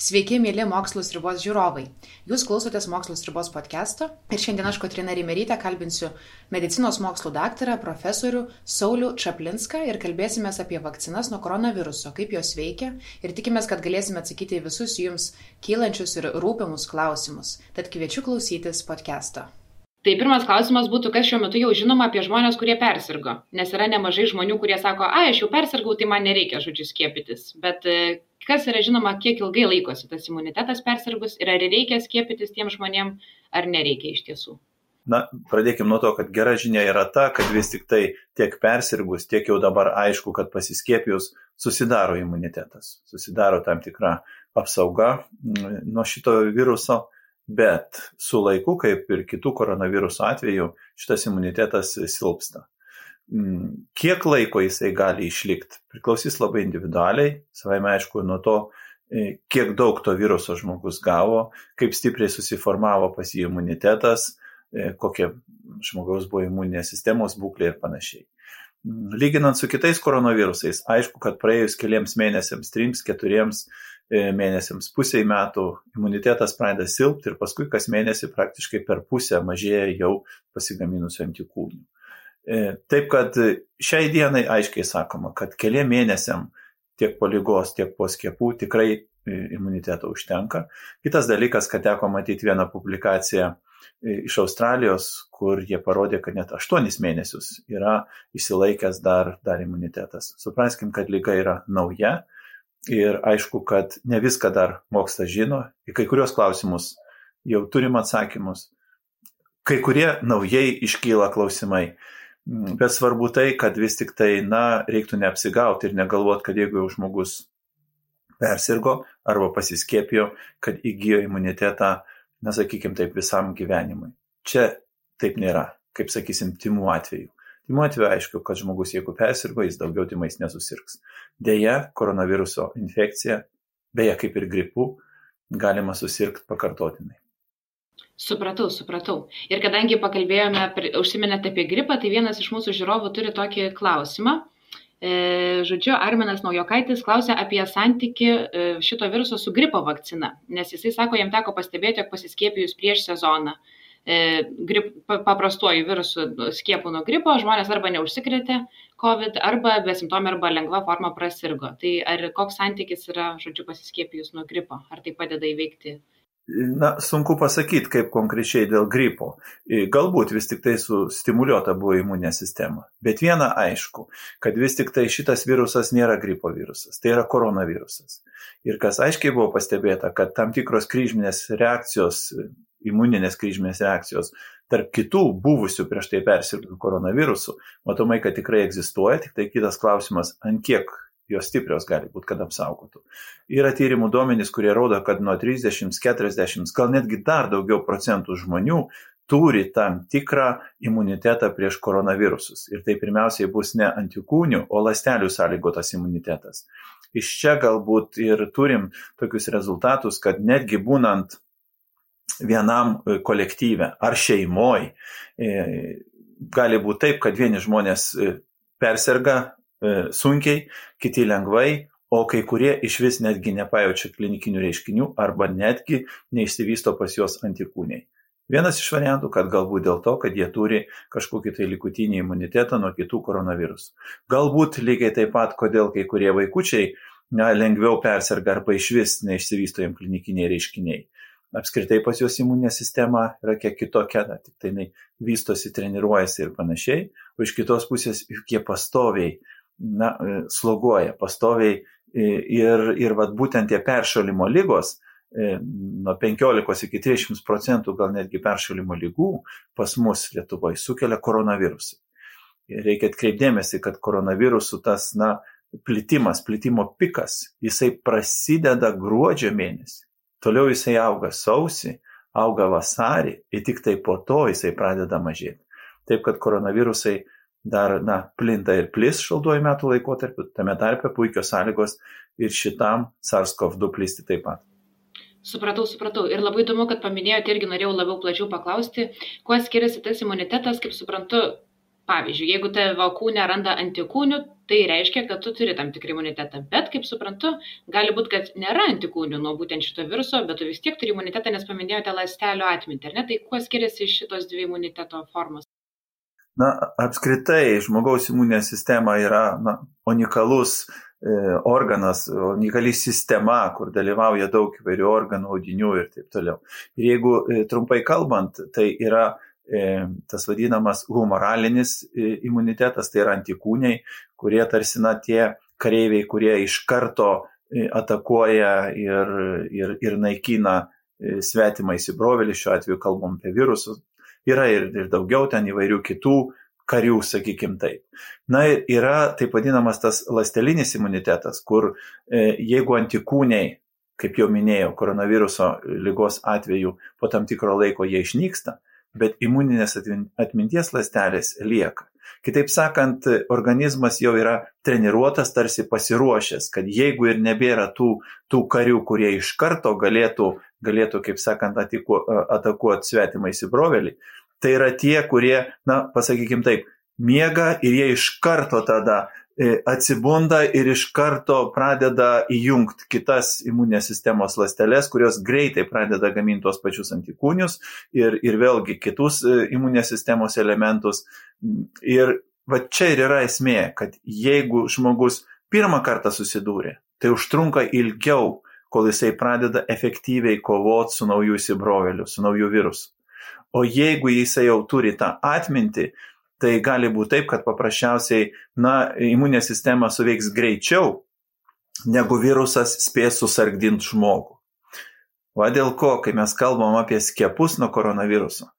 Sveiki, mėly Mokslo sriubos žiūrovai. Jūs klausotės Mokslo sriubos podcast'o ir šiandien aš, Kotryna Reimerytė, kalbinsiu medicinos mokslų daktarą, profesorių Saulių Čaplinską ir kalbėsimės apie vakcinas nuo koronaviruso, kaip jos veikia ir tikimės, kad galėsime atsakyti į visus jums kylančius ir rūpimus klausimus. Tad kviečiu klausytis podcast'o. Tai pirmas klausimas būtų, kas šiuo metu jau žinoma apie žmonės, kurie persirgo. Nes yra nemažai žmonių, kurie sako, aš jau persirgau, tai man nereikia, skiepytis. Bet kas yra žinoma, kiek ilgai laikosi tas imunitetas persirgus ir ar reikia skiepytis tiem žmonėm, ar nereikia iš tiesų? Na, pradėkime nuo to, kad gera žinia yra ta, kad vis tik tai tiek persirgus, tiek jau dabar aišku, kad pasiskiepijus susidaro imunitetas. Susidaro tam tikra apsauga nuo šito viruso. Bet su laiku, kaip ir kitų koronaviruso atveju, šitas imunitetas silpsta. Kiek laiko jisai gali išlikti, priklausys labai individualiai, savaime aišku nuo to, kiek daug to viruso žmogus gavo, kaip stipriai susiformavo pas jį imunitetas, kokia žmogaus buvo imuninės sistemos būklė ir panašiai. Lyginant su kitais koronavirusais, aišku, kad praėjus keliams mėnesiams, 3-4 mėnesiams, pusiai metų imunitetas pradeda silpti ir paskui kas mėnesį praktiškai per pusę mažėja jau pasigaminusių antikūnių. Taip kad šiai dienai aiškiai sakoma, kad keliam mėnesiam tiek po ligos, tiek po skiepų tikrai imuniteto užtenka. Kitas dalykas, kad teko matyti vieną publikaciją iš Australijos, kur jie parodė, kad net 8 mėnesius yra išsilaikęs dar imunitetas. Supraskim, kad liga yra nauja. Ir aišku, kad ne viską dar mokslas žino, į kai kurios klausimus jau turim atsakymus, kai kurie naujai iškyla klausimai, bet svarbu tai, kad vis tik tai, reiktų neapsigauti ir negalvoti, kad jeigu jau žmogus persirgo arba pasiskiepijo, kad įgijo imunitetą, sakykim taip, visam gyvenimui. Čia taip nėra, kaip sakysim, tymų atveju. Tymų atveju aišku, kad žmogus, jeigu persirgo, jis daugiau tymais nesusirgs. Deja, koronaviruso infekcija, beje kaip ir gripu, galima susirgti pakartotinai. Supratau. Ir kadangi užsiminėte apie gripą, tai vienas iš mūsų žiūrovų turi tokį klausimą. Arminas Naujokaitis klausia apie santykį šito viruso su gripo vakcina, nes jisai sako, jam teko pastebėti, jog pasiskiepijus prieš sezoną paprastuoju virusu skiepų nuo gripo, žmonės arba neužsikrėtė COVID, arba besimptomė, arba lengva forma prasirgo. Tai ar koks santykis yra, pasiskiepijus nuo gripo? Ar tai padeda įveikti? Sunku pasakyti, kaip konkrečiai dėl gripo. Galbūt vis tik tai sustimuliuota buvo imuninė sistema. Bet viena aišku, kad vis tik tai šitas virusas nėra gripo virusas, tai yra koronavirusas. Ir kas aiškiai buvo pastebėta, kad tam tikros kryžminės reakcijos, imuninės kryžminės reakcijos tarp kitų buvusių prieš tai persirgtų koronavirusų, matomai, kad tikrai egzistuoja, tik tai kitas klausimas, ant kiek jos stiprios gali būti, kad apsaugotų. Yra tyrimų duomenys, kurie rodo, kad nuo 30, 40, gal netgi dar daugiau procentų žmonių turi tam tikrą imunitetą prieš koronavirusus. Ir tai pirmiausiai bus ne antikūnių, o ląstelių sąlygotas imunitetas. Iš čia galbūt ir turim tokius rezultatus, kad netgi būnant vienam kolektyve ar šeimoj, gali būti taip, kad vieni žmonės persirga sunkiai, kiti lengvai, o kai kurie išvis netgi nepajaučia klinikinių reiškinių arba netgi neišsivysto pas juos antikūniai. Vienas iš variantų, kad galbūt dėl to, kad jie turi kažkokį tai likutinį imunitetą nuo kitų koronavirusų. Galbūt lygiai taip pat, kodėl kai kurie vaikučiai lengviau persirga arba išvis neišsivysto jiem klinikiniai reiškiniai. Apskritai pas juos imuninė sistema yra kiek kitokia, tik tai jinai vystosi, treniruojasi ir panašiai, o iš kitos pusės jie pastoviai sloguoja, pastoviai ir būtent tie peršalimo ligos, nuo 15 iki 30% gal netgi peršalimo ligų pas mus Lietuvoje sukelia koronavirusą. Reikia atkreipdėmėsi, kad koronavirusų tas plitimo pikas, jisai prasideda gruodžio mėnesį. Toliau jisai auga sausį, auga vasarį ir tik tai po to jisai pradeda mažėti. Taip, kad koronavirusai dar plinta ir plis šaltuoju metų laikotarpiu, tame tarpe puikios sąlygos ir šitam SARS-CoV-2 plisti taip pat. Supratau. Ir labai įdomu, kad paminėjote, irgi norėjau labiau plačiau paklausti, kuo skiriasi tas imunitetas, kaip suprantu, Pavyzdžiui, jeigu tavo kūne randa antikūnių, tai reiškia, kad tu turi tam tikrą imunitetą. Bet, kaip suprantu, gali būti, kad nėra antikūnių nuo būtent šito viruso, bet tu vis tiek turi imunitetą, nes paminėjote ląstelių atmintį, ar ne? Tai kuo skiriasi šitos dvi imuniteto formos? Apskritai, žmogaus imuninė sistema yra unikalus organas, unikali sistema, kur dalyvauja daug įvairių organų, audinių ir taip toliau. Ir jeigu trumpai kalbant, tai yra tas vadinamas humoralinis imunitetas, tai yra antikūniai, kurie tarsi tie kareiviai, kurie iš karto atakuoja ir naikina svetimą įsibrovėlį, šiuo atveju kalbam apie virusus, yra ir daugiau ten įvairių kitų karių, sakykim taip. Ir yra taip vadinamas tas ląstelinis imunitetas, kur jeigu antikūniai, kaip jau minėjau, koronaviruso ligos atveju po tam tikro laiko jie išnyksta, bet imuninės atminties ląstelės lieka. Kitaip sakant, organizmas jau yra treniruotas, tarsi pasiruošęs, kad jeigu ir nebėra tų karių, kurie iš karto galėtų, kaip sakant, atakuoti svetimą įsibrovėlį, tai yra tie, kurie, pasakykim taip, miega ir jie iš karto tada atsibunda ir iš karto pradeda įjungti kitas imuninės sistemos ląsteles, kurios greitai pradeda gaminti tos pačius antikūnius ir vėlgi kitus imuninės sistemos elementus. Ir čia ir yra esmė, kad jeigu žmogus pirmą kartą susidūrė, tai užtrunka ilgiau, kol jisai pradeda efektyviai kovoti su nauju įsibrovėliu, su nauju virusu. O jeigu jisai jau turi tą atmintį, tai gali būti taip, kad paprasčiausiai imuninė sistema suveiks greičiau, negu virusas spės susargdinti žmogų. Va dėl ko, kai mes kalbam apie skiepus nuo koronaviruso,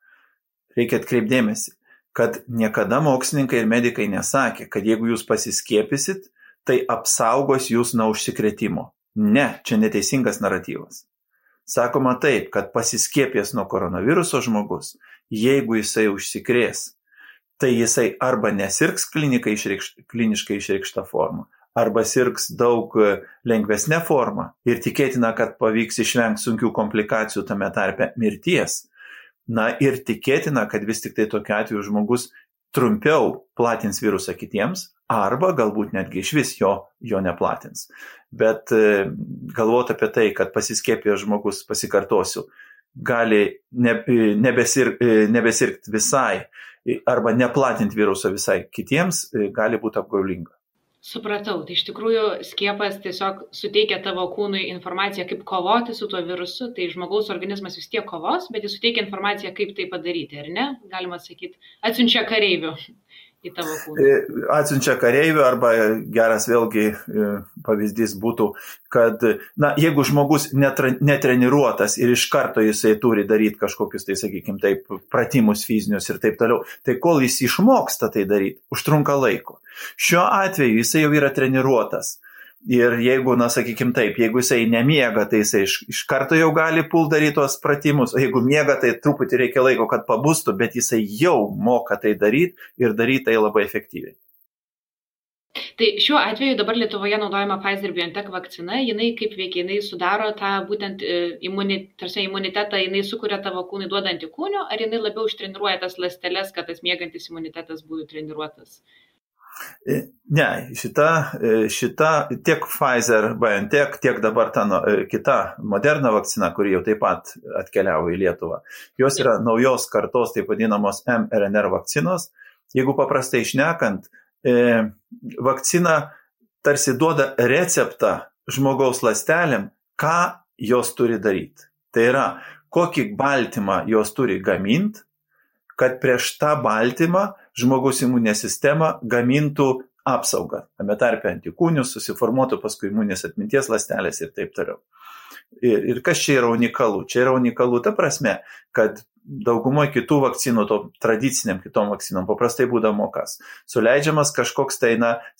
reikia atkreipdėmėsi, kad niekada mokslininkai ir medikai nesakė, kad jeigu jūs pasiskiepysit, tai apsaugos jūs nuo užsikrėtimo. Ne, čia neteisingas naratyvas. Sakoma taip, kad pasiskiepės nuo koronaviruso žmogus, jeigu jisai užsikrės, tai jisai arba nesirgs kliniškai išreikšta forma, arba sirgs daug lengvesnė forma ir tikėtina, kad pavyks išvengti sunkių komplikacijų, tame tarpe mirties. Ir tikėtina, kad vis tik tai tokiu atveju žmogus trumpiau platins virusą kitiems, arba galbūt netgi iš vis jo neplatins. Bet galvoti apie tai, kad pasiskiepėjęs žmogus, pasikartosiu, gali nebesirgti visai arba neplatinti viruso visai kitiems, gali būti apgaulinga. Supratau, tai iš tikrųjų skiepas tiesiog suteikia tavo kūnui informaciją, kaip kovoti su tuo virusu, tai žmogaus organizmas vis tiek kovos, bet jis suteikia informaciją, kaip tai padaryti, ar ne? Galima sakyti, atsiunčia kareivių į tavo kūną. Atsiunčia kareivių, arba geras vėlgi pavyzdys būtų, kad jeigu žmogus netreniruotas ir iš karto jisai turi daryti kažkokius, tai sakykim, taip, pratimus fizinius ir taip toliau, tai kol jis išmoksta tai daryti, užtrunka laiko. Šiuo atveju jisai jau yra treniruotas. Ir jeigu, sakykim taip, jeigu jisai nemiega, tai jisai iš karto jau gali daryti tos pratimus, o jeigu miega, tai truputį reikia laiko, kad pabustų, bet jisai jau moka tai daryti ir daryti tai labai efektyviai. Tai šiuo atveju dabar Lietuvoje naudojama Pfizer-BioNTech vakcina, jinai kaip veikia, jinai sudaro tą būtent imunitetą, jinai sukuria tavo kūnui duoda antikūnių, ar jinai labiau ištreniruoja tas ląsteles, kad tas miegantis imunitetas būtų treniruotas? Ne, šita tiek Pfizer-BioNTech, tiek dabar ta kita Moderna vakcina, kuri jau taip pat atkeliavo į Lietuvą. Jos yra naujos kartos, taip vadinamos mRNA vakcinos. Jeigu paprastai šnekant, vakcina tarsi duoda receptą žmogaus ląstelėm, ką jos turi daryti. Tai yra, kokį baltymą jos turi gaminti, kad prieš tą baltymą žmogaus imuninė sistema gamintų apsaugą. Tame tarpe antikūnius, susiformuotų paskui imuninės atminties ląstelės ir taip toliau. Ir kas čia yra unikalu? Čia yra unikalu ta prasme, kad daugumoje kitų vakcinų, to tradiciniam kitom vakcinom, paprastai būdavo kas. Suleidžiamas kažkoks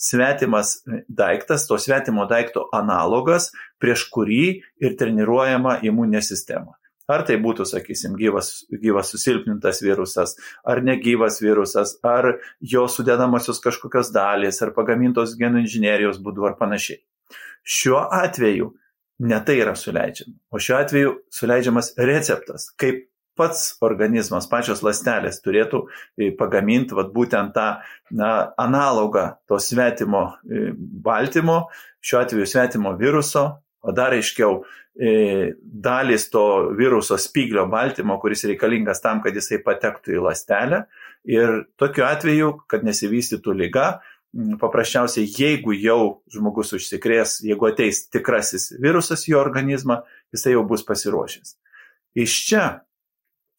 svetimas daiktas, to svetimo daikto analogas, prieš kurį ir treniruojama imuninė sistema. Ar tai būtų, sakysim, gyvas susilpnintas virusas, ar negyvas virusas, ar jo sudedamosios kažkokios dalys, ar pagamintos genų inžinerijos būdu, ar panašiai. Šiuo atveju ne tai yra suleidžiama, o šiuo atveju suleidžiamas receptas, kaip pats organizmas, pačios ląstelės turėtų pagaminti būtent tą analogą to svetimo baltymo, šiuo atveju svetimo viruso, o dar aiškiau dalis to viruso spyglio baltymo, kuris reikalingas tam, kad jisai patektų į ląstelę. Ir tokiu atveju, kad nesivystytų liga, paprasčiausiai, jeigu jau žmogus užsikrės, jeigu ateis tikrasis virusas į jo organizmą, jisai jau bus pasiruošęs. Iš čia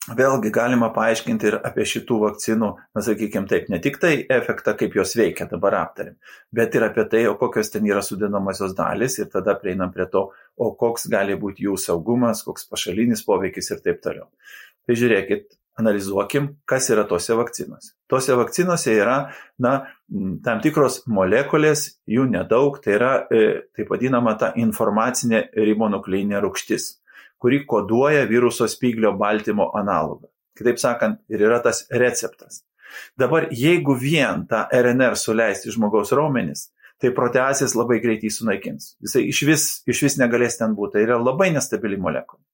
vėlgi galima paaiškinti ir apie šitų vakcinų, sakykime taip, ne tik tai efektą, kaip jos veikia, dabar aptarim, bet ir apie tai, o kokios ten yra sudedamosios dalys ir tada prieinam prie to, o koks gali būti jų saugumas, koks pašalinis poveikis ir taip toliau. Tai žiūrėkit, analizuokim, kas yra tose vakcinose. Tose vakcinose yra, tam tikros molekulės, jų nedaug, tai yra taip vadinama ta informacinė ribonukleinė rūgštis, kuri koduoja viruso spyglio baltymo analogą. Kitaip sakant, ir yra tas receptas. Dabar, jeigu vien tą RNR suleisti žmogaus raumenis, tai proteazės labai greitai sunaikins. Jisai iš vis negalės ten būti. Tai yra labai nestabili molekulė.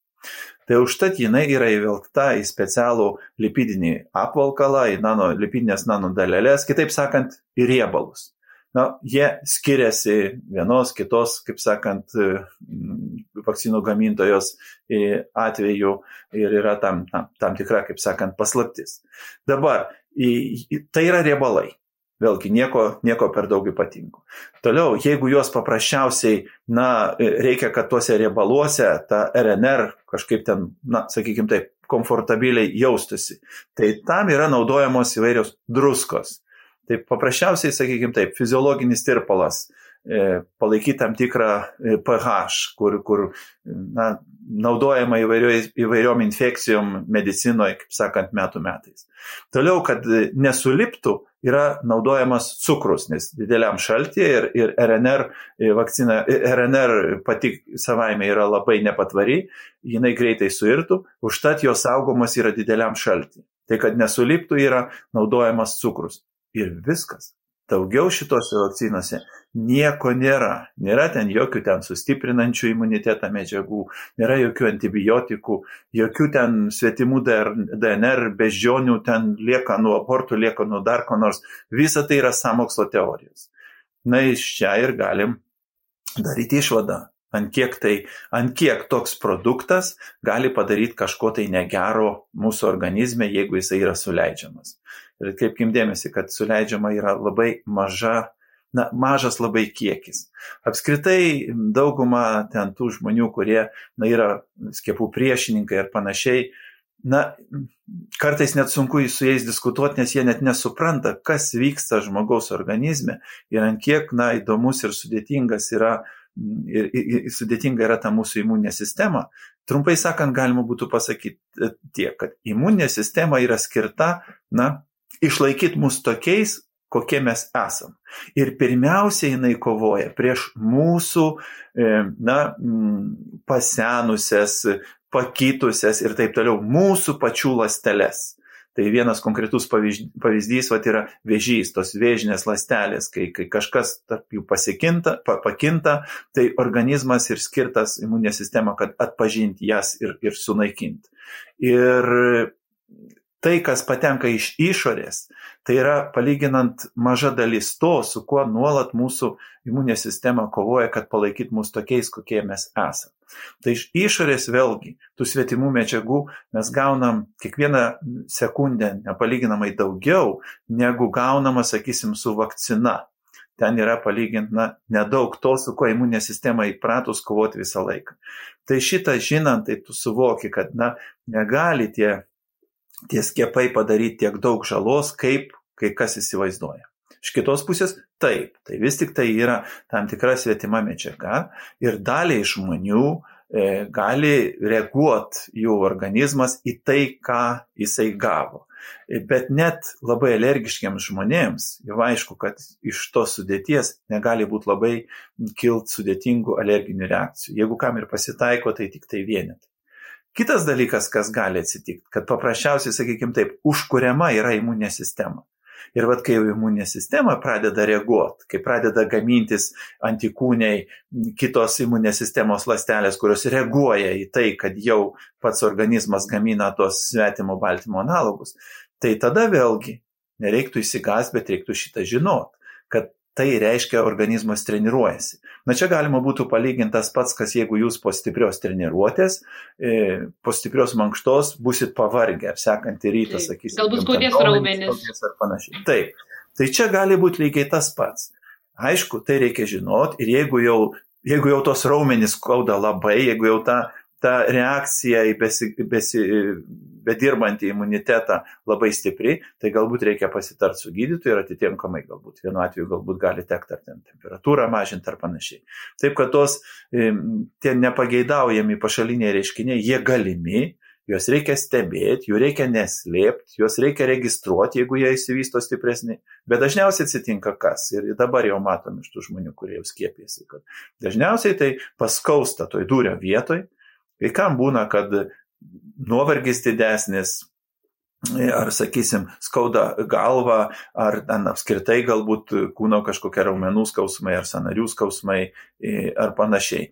Tai užtat jinai yra įvilkta į specialų lipidinį apvalkalą, į lipidinės nanodaleles, kitaip sakant, į riebalus. Jie skiriasi vienos, kitos, kaip sakant, vakcinų gamintojos atveju ir yra tam tikra, kaip sakant, paslaptis. Dabar, tai yra riebalai. Vėlgi, nieko per daug ypatingų. Toliau, jeigu juos paprasčiausiai, reikia, kad tuose riebaluose ta RNR kažkaip ten, sakykime taip, komfortabiliai jaustųsi, tai tam yra naudojamos įvairios druskos. Tai paprasčiausiai, sakykime taip, fiziologinis tirpalas, palaikyti tam tikrą pH, kur naudojama įvairiom infekcijom medicinoje, kaip sakant, metų metais. Toliau, kad nesuliptų, yra naudojamas cukrus, nes dideliam šaltyje ir RNR vakcina, RNR pati savaime yra labai nepatvari, jinai greitai suirtų, užtat jos saugomas yra dideliam šaltyje. Tai, kad nesuliptų, yra naudojamas cukrus. Ir viskas. Daugiau šitose vakcinose nieko nėra. Nėra ten jokių ten sustiprinančių imunitetą medžiagų, nėra jokių antibiotikų, jokių ten svetimų DNR, beždžionių ten lieka nuo abortų, lieka nuo dar ko nors. Visa tai yra sąmokslo teorijos. Iš čia ir galim daryti išvadą. Ant kiek toks produktas gali padaryti kažko tai negero mūsų organizme, jeigu jisai yra suleidžiamas. Ir atkreipkim dėmesį, kad suleidžiama yra labai mažas labai kiekis. Apskritai dauguma ten tų žmonių, kurie yra skiepų priešininkai ir panašiai, kartais net sunku su jais diskutuoti, nes jie net nesupranta, kas vyksta žmogaus organizme ir ant kiek įdomus ir sudėtingas yra ir sudėtinga yra ta mūsų imuninė sistema. Trumpai sakant, galima būtų pasakyti tiek, kad imuninė sistema yra skirta, išlaikyti mus tokiais, kokie mes esam. Ir pirmiausia, jinai kovoja prieš mūsų, pasenusias, pakitusias ir taip toliau, mūsų pačių ląsteles. Tai vienas konkretus pavyzdys yra vėžys, tos vėžinės ląstelės, kai kažkas tarp jų pakinta, tai organizmas ir skirtas imuninė sistema, kad atpažinti jas ir sunaikinti. Ir tai, kas patenka iš išorės, tai yra palyginant maža dalis to, su kuo nuolat mūsų imuninė sistema kovoja, kad palaikytų mus tokiais, kokie mes esame. Tai iš išorės vėlgi, tų svetimų medžiagų mes gaunam kiekvieną sekundę nepalyginamai daugiau, negu gaunama, sakysim, su vakcina. Ten yra palyginti nedaug to, su kuo imuninė sistema įpratus kovoti visą laiką. Tai šitą žinant, tai tu suvoki, kad negali tie skiepai padaryti tiek daug žalos, kaip kai kas įsivaizduoja. Iš kitos pusės, taip, tai vis tik tai yra tam tikra svetima medžiaga ir daliai žmonių gali reaguoti jų organizmas į tai, ką jisai gavo. Bet net labai alergiškiams žmonėms, jau aišku, kad iš tos sudėties negali būti labai kilt sudėtingų alerginių reakcijų. Jeigu kam ir pasitaiko, tai tik tai vienetai. Kitas dalykas, kas gali atsitikti, kad paprasčiausiai, sakykime taip, užkuriama yra imuninė sistema. Ir kai jau imuninė sistema pradeda reaguoti, kai pradeda gamintis antikūniai, kitos imuninės sistemos ląstelės, kurios reaguoja į tai, kad jau pats organizmas gamina tos svetimo baltymo analogus, tai tada vėlgi nereiktų įsigąsti, bet reiktų šitą žinot, kad tai reiškia organizmas treniruojasi. Na čia galima būtų palyginti tas pats, kas jeigu jūs po stiprios treniruotės, po stiprios mankštos busit pavargę, ar sekantį rytą, sakysim. Galbūt skaudės raumenis. Ar panašiai. Taip. Tai čia gali būti lygiai tas pats. Aišku, tai reikia žinot ir jeigu jau tos raumenys skauda labai, jeigu jau ta reakcija į bedirbantį imunitetą labai stipri, tai galbūt reikia pasitarti su gydytoju ir atitinkamai galbūt. Vienu atveju galbūt gali tekti ar temperatūrą mažinti ar panašiai. Taip, kad tie nepageidaujami pašaliniai reiškiniai, jie galimi, juos reikia stebėti, jų reikia neslėpti, juos reikia registruoti, jeigu jie įsivysto stipresni. Bet dažniausiai atsitinka kas? Ir dabar jau matom iš tų žmonių, kurie jau skiepėsi, kad dažniausiai tai paskausta toj dūrio vietoj. Kai kam būna, kad nuovargis didesnis, ar, sakysim, skauda galva, ar apskritai galbūt kūno kažkokie raumenų skausmai, ar sąnarių skausmai, ar panašiai.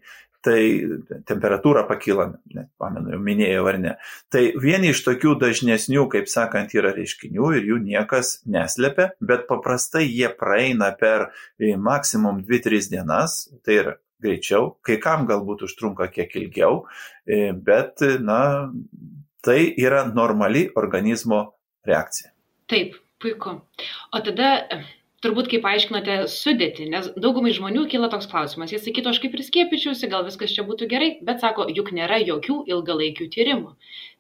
Tai temperatūra pakyla, pamenu, jau minėjau ar ne. Tai vieni iš tokių dažnesnių, kaip sakant, yra reiškinių ir jų niekas neslepia, bet paprastai jie praeina per maksimum 2-3 dienas, tai yra greičiau, kai kam galbūt užtrunka kiek ilgiau, bet, tai yra normali organizmo reakcija. Taip, puiku. O tada, turbūt kaip aiškinote sudėtį, nes daugumai žmonių kyla toks klausimas. Jie sakytų, aš kaip ir skiepyčiausi, gal viskas čia būtų gerai, bet sako, juk nėra jokių ilgalaikių tyrimų.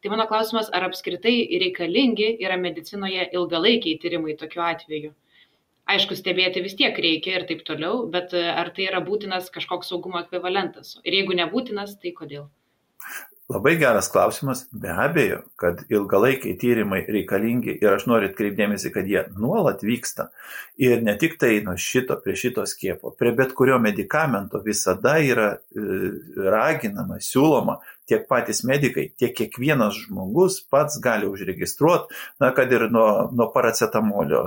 Tai mano klausimas, ar apskritai reikalingi yra medicinoje ilgalaikiai tyrimai tokiu atveju? Aišku, stebėti vis tiek reikia ir taip toliau, bet ar tai yra būtinas kažkoks saugumo ekvivalentas? Ir jeigu nebūtinas, tai kodėl? Labai geras klausimas. Be abejo, kad ilgalaikiai tyrimai reikalingi ir aš noriu atkreipdėmėsi, kad jie nuolat vyksta. Ir ne tik tai prie šito skiepo, prie bet kurio medikamento visada yra raginama, siūloma tiek patys medikai, tiek kiekvienas žmogus pats gali užregistruoti, kad ir nuo paracetamolio,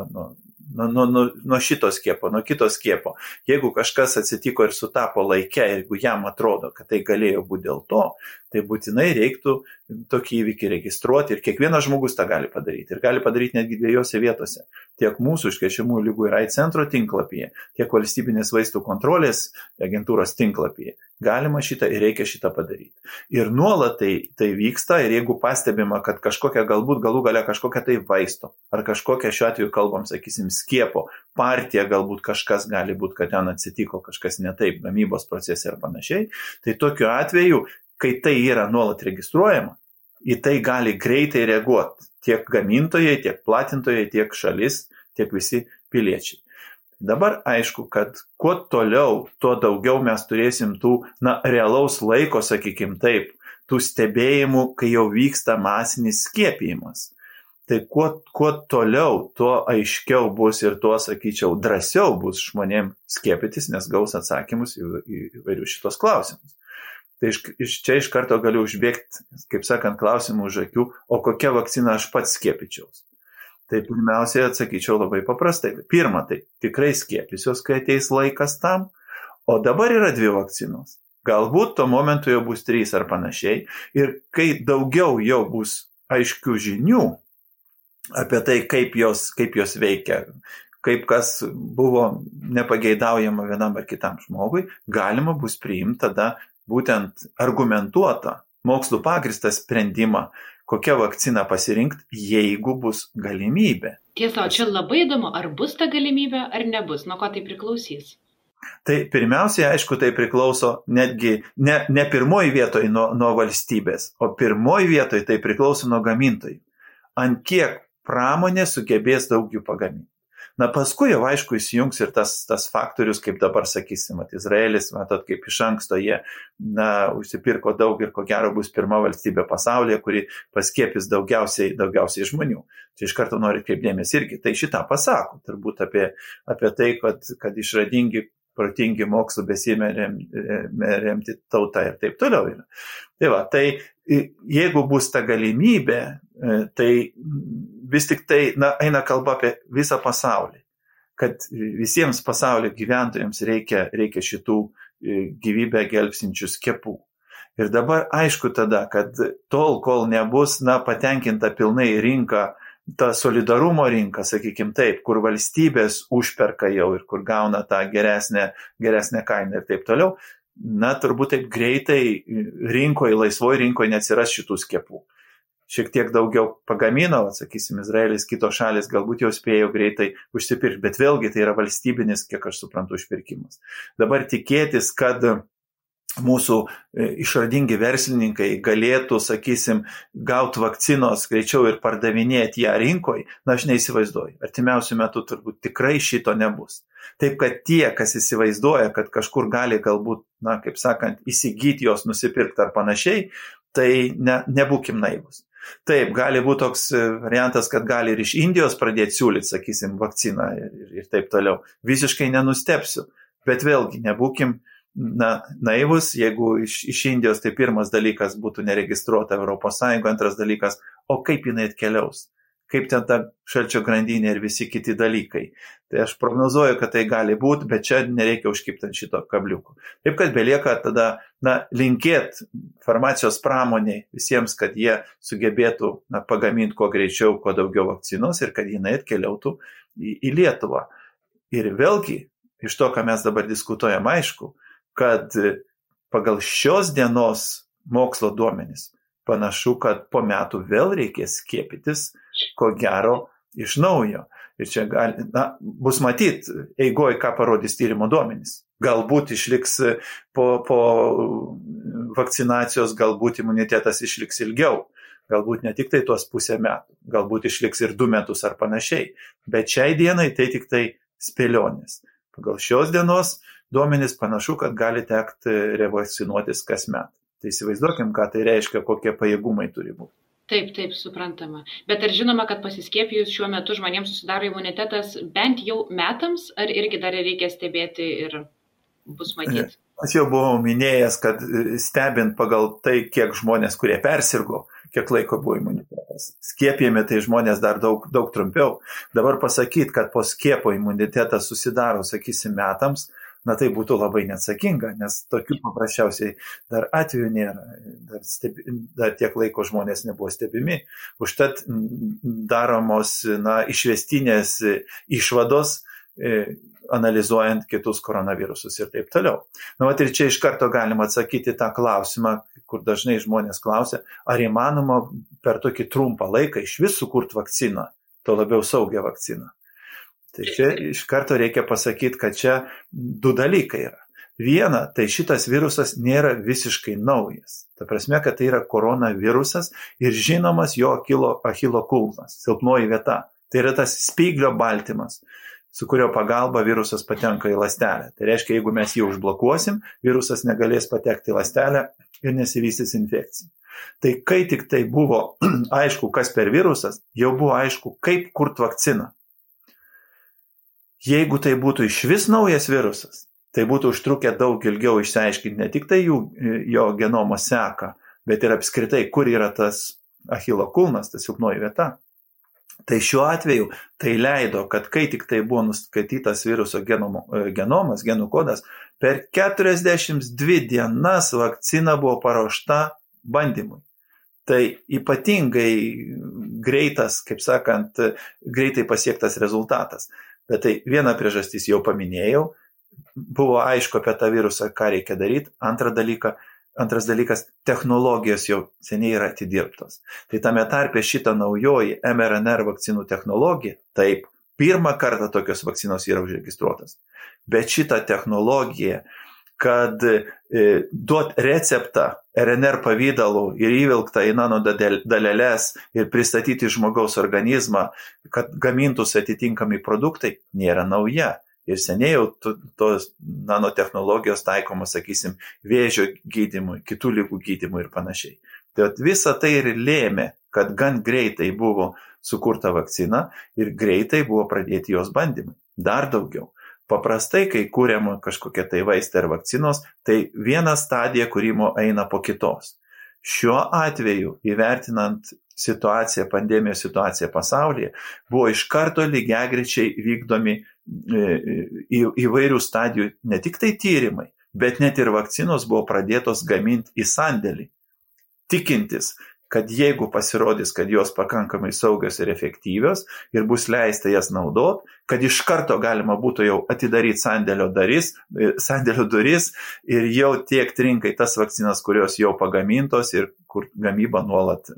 nuo šito skiepo, nuo kito skiepo. Jeigu kažkas atsitiko ir sutapo laike, jeigu jam atrodo, kad tai galėjo būti dėl to, tai būtinai reiktų tokį įvykį registruoti ir kiekvienas žmogus tą gali padaryti. Ir gali padaryti netgi 2 vietose. Tiek mūsų užkrečiamųjų ligų ir AIDS centro tinklapyje, tiek valstybinės vaistų kontrolės agentūros tinklapyje. Galima šitą ir reikia šitą padaryti. Ir nuolat tai vyksta ir jeigu pastebima, kad kažkokia galbūt galų gale kažkokia tai vaisto, ar kažkokia šiuo atveju kalbam, sakysim, skiepo partija, galbūt kažkas gali būti, kad ten atsitiko kažkas ne taip, gamybos procese ir panašiai, tai tokiu atveju, kai tai yra nuolat registruojama, į tai gali greitai reaguoti tiek gamintojai, tiek platintojai, tiek šalis, tiek visi piliečiai. Dabar aišku, kad kuo toliau, tuo daugiau mes turėsim tų realaus laiko, sakykim taip, tų stebėjimų, kai jau vyksta masinis skiepijimas. Tai kuo toliau, tuo aiškiau bus ir tuo, sakyčiau, drąsiau bus žmonėm skiepytis, nes gaus atsakymus į įvairius šitos klausimus. Tai čia iš karto galiu užbėgti, kaip sakant, klausimų už akių, o kokią vakciną aš pats skiepyčiaus. Tai pirmiausiai atsakyčiau labai paprastai. Pirma, tai tikrai skiepysiuos, kai ateis laikas tam, o dabar yra 2 vakcinos. Galbūt tuo momentu jau bus 3 ar panašiai. Ir kai daugiau jau bus aiškių žinių apie tai, kaip jos veikia, kaip kas buvo nepageidaujama vienam ar kitam žmogui, galima bus priimti tada būtent argumentuotą, mokslų pagristą sprendimą, kokią vakciną pasirinkti, jeigu bus galimybė. Tiesa, o čia labai įdomu, ar bus ta galimybė, ar nebus, nuo ko tai priklausys? Tai pirmiausiai, aišku, tai priklauso netgi ne pirmoji vietoj nuo valstybės, o pirmoji vietoj tai priklauso nuo gamintojų. Ant kiek pramonė sugebės daug jų pagaminti. Paskui jau aišku įsijungs ir tas faktorius, kaip dabar sakysim, Izraelis, matot, kaip iš anksto jie užsipirko daug ir ko gero bus pirma valstybė pasaulyje, kuri paskiepys daugiausiai žmonių. Čia iš karto noriu kreipdėmės irgi. Tai šitą pasako, turbūt apie tai, kad išradingi protingi mokslo besimerianti tauta ir taip toliau yra. Tai jeigu bus ta galimybė, tai vis tik tai eina kalba apie visą pasaulį, kad visiems pasaulio gyventojams reikia šitų gyvybę gelbstinčių skiepų. Ir dabar aišku tada, kad tol, kol nebus patenkinta pilnai rinka, ta solidarumo rinka, sakykime taip, kur valstybės užperka jau ir kur gauna tą geresnę kainą ir taip toliau, turbūt taip greitai laisvoje rinkoje neatsiras šitų skiepų. Šiek tiek daugiau pagamino, sakysim, Izraelis, kitos šalis galbūt jau spėjo greitai užsipirkti, bet vėlgi tai yra valstybinis, kiek aš suprantu, užpirkimas. Dabar tikėtis, kad mūsų išradingi verslininkai galėtų, sakysim, gauti vakcinos greičiau ir pardavinėti ją rinkoje, aš neįsivaizduoju. Artimiausiu metu turbūt tikrai šito nebus. Taip, kad tie, kas įsivaizduoja, kad kažkur gali galbūt, kaip sakant, įsigyti jos, nusipirkti ar panašiai, tai nebūkim naivus. Taip, gali būti toks variantas, kad gali ir iš Indijos pradėti siūlyti, sakysim, vakciną ir taip toliau. Visiškai nenustepsiu, bet vėlgi nebūkim naivus, jeigu iš Indijos tai pirmas dalykas būtų neregistruota ES, antras dalykas, o kaip jinai atkeliaus, kaip ten ta šalčio grandinė ir visi kiti dalykai. Tai aš prognozuoju, kad tai gali būti, bet čia nereikia užkibti ant šito kabliuko. Taip, kad belieka tada linkėti farmacijos pramoniai visiems, kad jie sugebėtų pagaminti kuo greičiau, kuo daugiau vakcinos ir kad jinai atkeliautų į Lietuvą. Ir vėlgi, iš to, ką mes dabar diskutuojam, aišku, kad pagal šios dienos mokslo duomenis panašu, kad po metų vėl reikės skiepytis, ko gero, iš naujo. Ir čia bus matyti eigoj, ką parodys tyrimo duomenys. Galbūt išliks po vakcinacijos, galbūt imunitetas išliks ilgiau. Galbūt ne tik tai tuos pusę metų, galbūt išliks ir 2 metus ar panašiai. Bet šiai dienai tai tik tai spėlionės. Pagal šios dienos duomenys panašu, kad gali tekti revakcinuotis kasmet. Tai įsivaizduokim, ką tai reiškia, kokie pajėgumai turi būti. Taip, suprantama. Bet ar žinoma, kad pasiskiepijus šiuo metu žmonėms susidaro imunitetas bent jau metams, ar irgi dar reikia stebėti ir bus matyti? Aš jau buvau minėjęs, kad stebint pagal tai, kiek žmonės, kurie persirgo, kiek laiko buvo imunitetas. Skiepijami tai žmonės dar daug trumpiau. Dabar pasakyti, kad po skiepo imunitetas susidaro, sakysim, metams, tai būtų labai neatsakinga, nes tokių paprasčiausiai dar atvejų nėra, dar tiek laiko žmonės nebuvo stebimi. Užtat daromos išvestinės išvados, analizuojant kitus koronavirusus ir taip toliau. Ir čia iš karto galima atsakyti tą klausimą, kur dažnai žmonės klausia, ar įmanoma per tokį trumpą laiką iš vis sukurti vakciną, to labiau saugią vakciną. Tai čia iš karto reikia pasakyti, kad čia 2 dalykai yra. Viena, tai šitas virusas nėra visiškai naujas. Ta prasme, kad tai yra koronavirusas ir žinomas jo Achilo kulnas, silpnoji vieta. Tai yra tas spyglio baltymas, su kurio pagalba virusas patenka į ląstelę. Tai reiškia, jeigu mes jį užblokuosim, virusas negalės patekti į ląstelę ir nesivystys infekcija. Tai kai tik tai buvo aišku, kas per virusas, jau buvo aišku, kaip kurti vakciną. Jeigu tai būtų iš vis naujas virusas, tai būtų užtrukę daug ilgiau išsiaiškinti ne tik tai jo genomo seką, bet ir apskritai, kur yra tas Achilo kulnas, tas silpnoji vieta. Tai šiuo atveju tai leido, kad kai tik tai buvo nuskaitytas viruso genomas, genų kodas, per 42 dienas vakcina buvo paruošta bandymui. Tai ypatingai greitas, kaip sakant, greitai pasiektas rezultatas. Bet tai viena priežastis jau paminėjau, buvo aišku apie tą virusą, ką reikia daryti. Antras dalykas, technologijos jau seniai yra atidirbtos. Tai tame tarpe šita naujoji mRNA vakcinų technologija, taip, pirmą kartą tokios vakcinos yra užregistruotas. Bet šita technologija, kad duot receptą RNR pavydalu ir įvilktą į nanodaleles ir pristatyti žmogaus organizmą, kad gamintųsi atitinkami produktai, nėra nauja. Ir seniai jau tos nanotechnologijos taikomos, sakysim, vėžio gydymui, kitų ligų gydymui ir panašiai. Tai visa tai ir lėmė, kad gan greitai buvo sukurta vakcina ir greitai buvo pradėti jos bandymai. Dar daugiau. Paprastai, kai kūriama kažkokia tai vaistai ar vakcinos, tai viena stadija kūrimo eina po kitos. Šiuo atveju, įvertinant pandemijos situaciją pasaulyje, buvo iš karto lygiagrečiai vykdomi įvairių stadijų ne tik tai tyrimai, bet net ir vakcinos buvo pradėtos gaminti į sandėlį, tikintis, kad jeigu pasirodys, kad jos pakankamai saugios ir efektyvios ir bus leista jas naudoti, kad iš karto galima būtų jau atidaryti sandėlio duris ir jau tiekti rinkai tas vakcinas, kurios jau pagamintos ir kur gamyba nuolat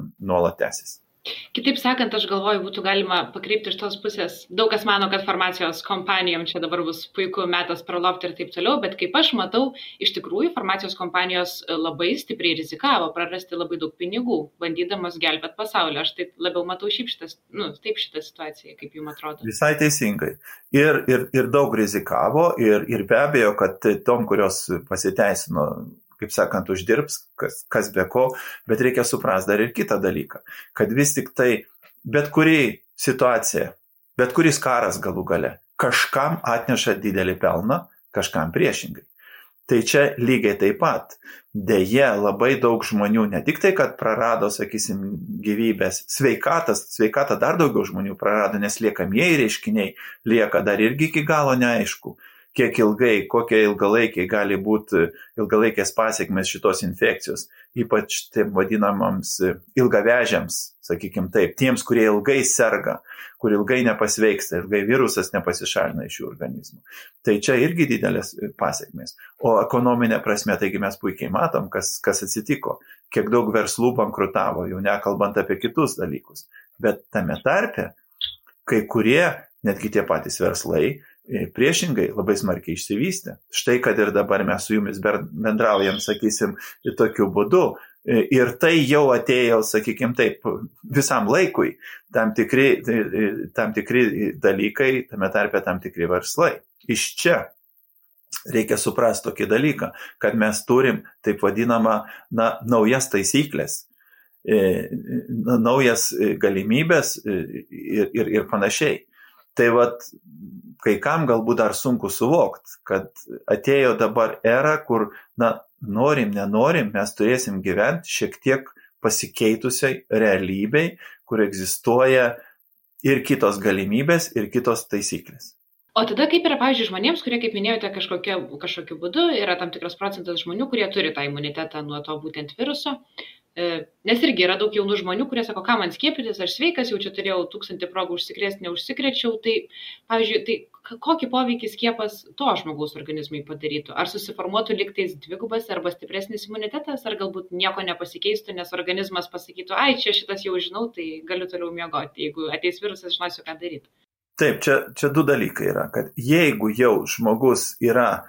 tęsis. Kitaip sakant, aš galvoju, būtų galima pakreipti iš tos pusės. Daug kas mano, kad farmacijos kompanijom čia dabar bus puiku metas pralopti ir taip toliau, bet kaip aš matau, iš tikrųjų farmacijos kompanijos labai stipriai rizikavo prarasti labai daug pinigų, bandydamos gelbėti pasaulį. Aš taip labiau matau šitą situaciją, kaip jums atrodo. Visai teisingai. Ir daug rizikavo ir be abejo, kad tom, kurios pasiteisino, kaip sakant, uždirbs, kas be ko, bet reikia suprasti dar ir kitą dalyką, kad vis tik tai bet kuri situacija, bet kuris karas galų gale, kažkam atneša didelį pelną, kažkam priešingai. Tai čia lygiai taip pat. Deja, labai daug žmonių, ne tik tai, kad prarado, sakysim, gyvybės, sveikatą dar daugiau žmonių prarado, nes liekamieji reiškiniai lieka dar irgi iki galo neaišku. Kiek ilgai, kokie ilgalaikiai gali būti ilgalaikės pasiekmes šitos infekcijos, ypač tiem vadinamams ilgavežiams, sakykim taip, tiems, kurie ilgai serga, kur ilgai nepasveiksta, ilgai virusas nepasišalina iš jų organizmų. Tai čia irgi didelės pasiekmes. O ekonominė prasme, taigi mes puikiai matom, kas atsitiko, kiek daug verslų bankrutavo, jau nekalbant apie kitus dalykus. Bet tame tarpe, kai kurie, netgi tie patys verslai, priešingai labai smarkiai išsivystė. Štai, kad ir dabar mes su jumis bendraujam, sakysim, tokiu būdu. Ir tai jau atėjo, sakykim taip, visam laikui tam tikri dalykai, tame tarpe tam tikri verslai. Iš čia reikia suprasti tokį dalyką, kad mes turim taip vadinamą naujas taisyklės, naujas galimybės ir panašiai. Tai kai kam galbūt dar sunku suvokti, kad atėjo dabar era, kur, norim, nenorim, mes turėsim gyventi šiek tiek pasikeitusiai realybei, kur egzistuoja ir kitos galimybės, ir kitos taisyklės. O tada kaip yra, pavyzdžiui, žmonėms, kurie, kaip minėjote, kažkokiu būdu yra tam tikras procentas žmonių, kurie turi tą imunitetą nuo to būtent viruso. Nes irgi yra daug jaunų žmonių, kurie sako, ką man skiepytis, aš sveikas, jau čia turėjau 1000 progų užsikrėsti, neužsikrečiau. Tai, pavyzdžiui, kokį poveikį skiepas to žmogaus organizmui padarytų? Ar susiformuotų liktais dvigubas arba stipresnis imunitetas, ar galbūt nieko nepasikeistų, nes organizmas pasakytų, ai, čia šitas jau žinau, tai galiu toliau miegoti. Jeigu ateis virusas, žinosiu, ką daryti. Taip, čia du dalykai yra, kad jeigu jau žmogus yra,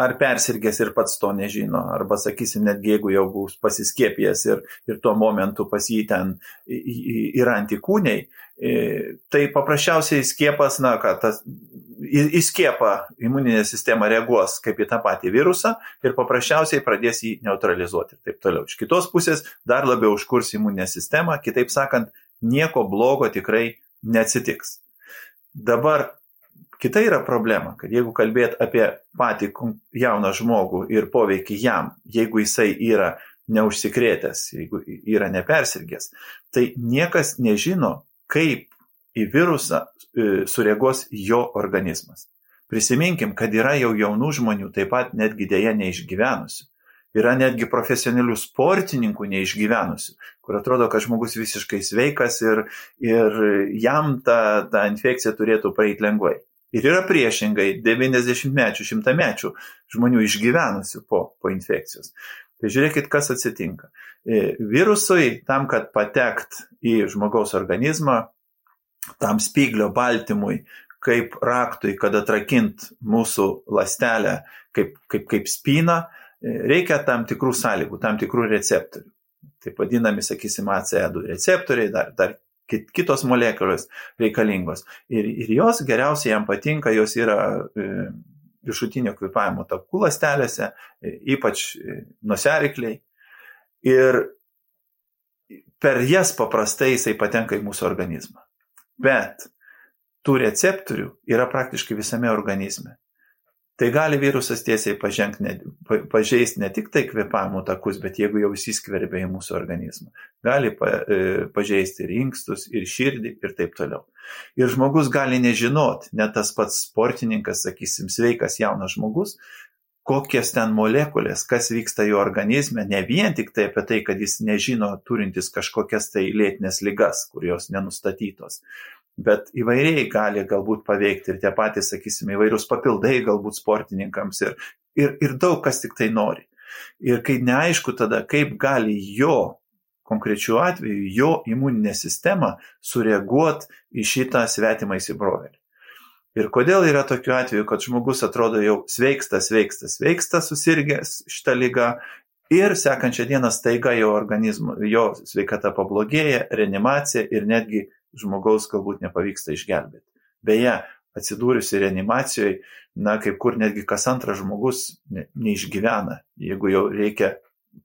ar persirgęs ir pats to nežino, arba, sakysim, netgi jeigu jau bus pasiskiepijęs ir tuo momentu pas jį ten yra antikūniai, tai paprasčiausiai skiepas, į skiepą imuninė sistema reaguos kaip į tą patį virusą ir paprasčiausiai pradės jį neutralizuoti ir taip toliau. Iš kitos pusės dar labiau užkurs imuninę sistemą, kitaip sakant, nieko blogo tikrai neatsitiks. Dabar kita yra problema, kad jeigu kalbėt apie patį jauną žmogų ir poveikį jam, jeigu jisai yra neužsikrėtęs, jeigu yra nepersirgęs, tai niekas nežino, kaip į virusą sureaguos jo organizmas. Prisiminkim, kad yra jau jaunų žmonių, taip pat netgi dėja neišgyvenusių. Yra netgi profesionalių sportininkų neišgyvenusių, kur atrodo, kad žmogus visiškai sveikas ir jam ta infekcija turėtų praeiti lengvai. Ir yra priešingai 90-mečių, 100-mečių žmonių išgyvenusių po infekcijos. Tai žiūrėkit, kas atsitinka. Virusui, tam, kad patekt į žmogaus organizmą, tam spyglio baltymui, kaip raktui, kad atrakint mūsų ląstelę kaip spyną, reikia tam tikrų sąlygų, tam tikrų receptorių. Taip vadinami, sakysim, ACE2 receptoriai, dar kitos molekulės reikalingos. Ir jos geriausiai jam patinka, jos yra viršutinio kvėpavimo takų ląstelėse, ypač nosiaryklėj. Ir per jas paprastai jisai patenka į mūsų organizmą. Bet tų receptorių yra praktiškai visame organizme. Tai gali virusas tiesiai pažeisti ne tik tai kvėpavimo takus, bet jeigu jau įsiskverbia į mūsų organizmą. Gali pažeisti ir inkstus, ir širdį, ir taip toliau. Ir žmogus gali nežinot, net tas pats sportininkas, sakysim, sveikas jaunas žmogus, kokias ten molekulės, kas vyksta jo organizme, ne vien tik tai apie tai, kad jis nežino turintis kažkokias tai lėtinės ligas, kurios nenustatytos. Bet įvairiai gali galbūt paveikti ir tie patys, sakysime, įvairius papildai galbūt sportininkams ir daug kas tik tai nori. Ir kai neaišku tada, kaip gali jo, konkrečiu atveju, jo imuninė sistema sureaguoti į šitą svetimą įsibrovėlį. Ir kodėl yra tokiu atveju, kad žmogus atrodo jau sveiksta, susirgęs šitą ligą ir sekančią dieną staiga jo organizmo, jo sveikata pablogėja, reanimacija ir netgi žmogaus galbūt nepavyksta išgelbėti. Beje, atsidūrusi reanimacijoje, kaip kur netgi kas antras žmogus neišgyvena, jeigu jau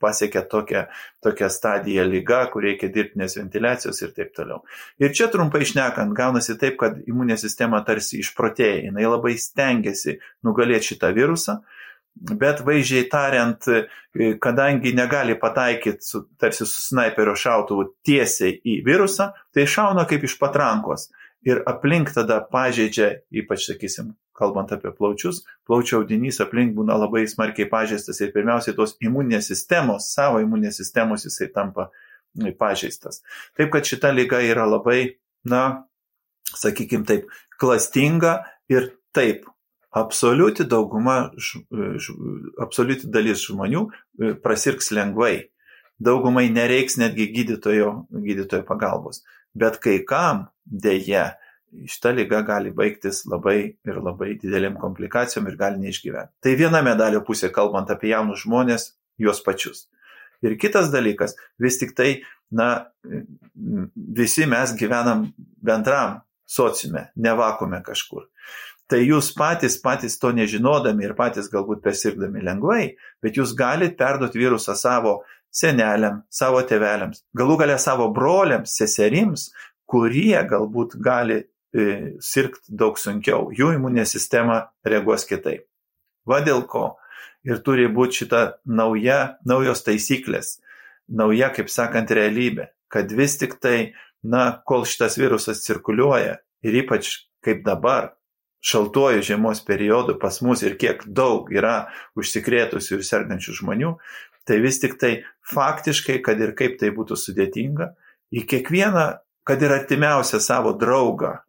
pasiekia tokią stadiją liga, kur reikia dirbtinės ventiliacijos ir taip toliau. Ir čia trumpai šnekant, gaunasi taip, kad imuninė sistema tarsi išprotėja, jinai labai stengiasi nugalėti šitą virusą, bet vaizdžiai tariant, kadangi negali pataikyti tarsi su snaiperio šautuvu tiesiai į virusą, tai šauna kaip iš patrankos ir aplink tada pažeidžia, ypač, sakysim, kalbant apie plaučius, plaučių audinys aplink būna labai smarkiai pažeistas ir pirmiausiai tos imuninės sistemos, savo imuninės sistemos jisai tampa pažeistas. Taip, kad šita liga yra labai, sakykim taip, klastinga ir taip, absoliuti dalis žmonių prasirgs lengvai. Daugumai nereiks netgi gydytojo pagalbos. Bet kai kam dėja šita liga gali baigtis labai ir labai didelėm komplikacijom ir gali neišgyventi. Tai viena medalio pusė, kalbant apie jaunus žmonės, juos pačius. Ir kitas dalykas, vis tik tai, visi mes gyvenam bendram sociume, ne vakuume kažkur. Tai jūs patys to nežinodami ir patys galbūt persirgdami lengvai, bet jūs galite perduoti virusą savo seneliam, savo tėveliams, galų gale savo broliams, seserims, kurie galbūt gali sirgti daug sunkiau. Jų imuninė sistema reaguos kitaip. Va dėl ko ir turi būti šita naujos taisyklės, nauja, kaip sakant, realybė, kad vis tik tai, kol šitas virusas cirkuliuoja ir ypač kaip dabar, šaltuoju žiemos periodu pas mus ir kiek daug yra užsikrėtusių ir sergančių žmonių, tai vis tik tai faktiškai, kad ir kaip tai būtų sudėtinga, į kiekvieną, kad ir artimiausią savo draugą,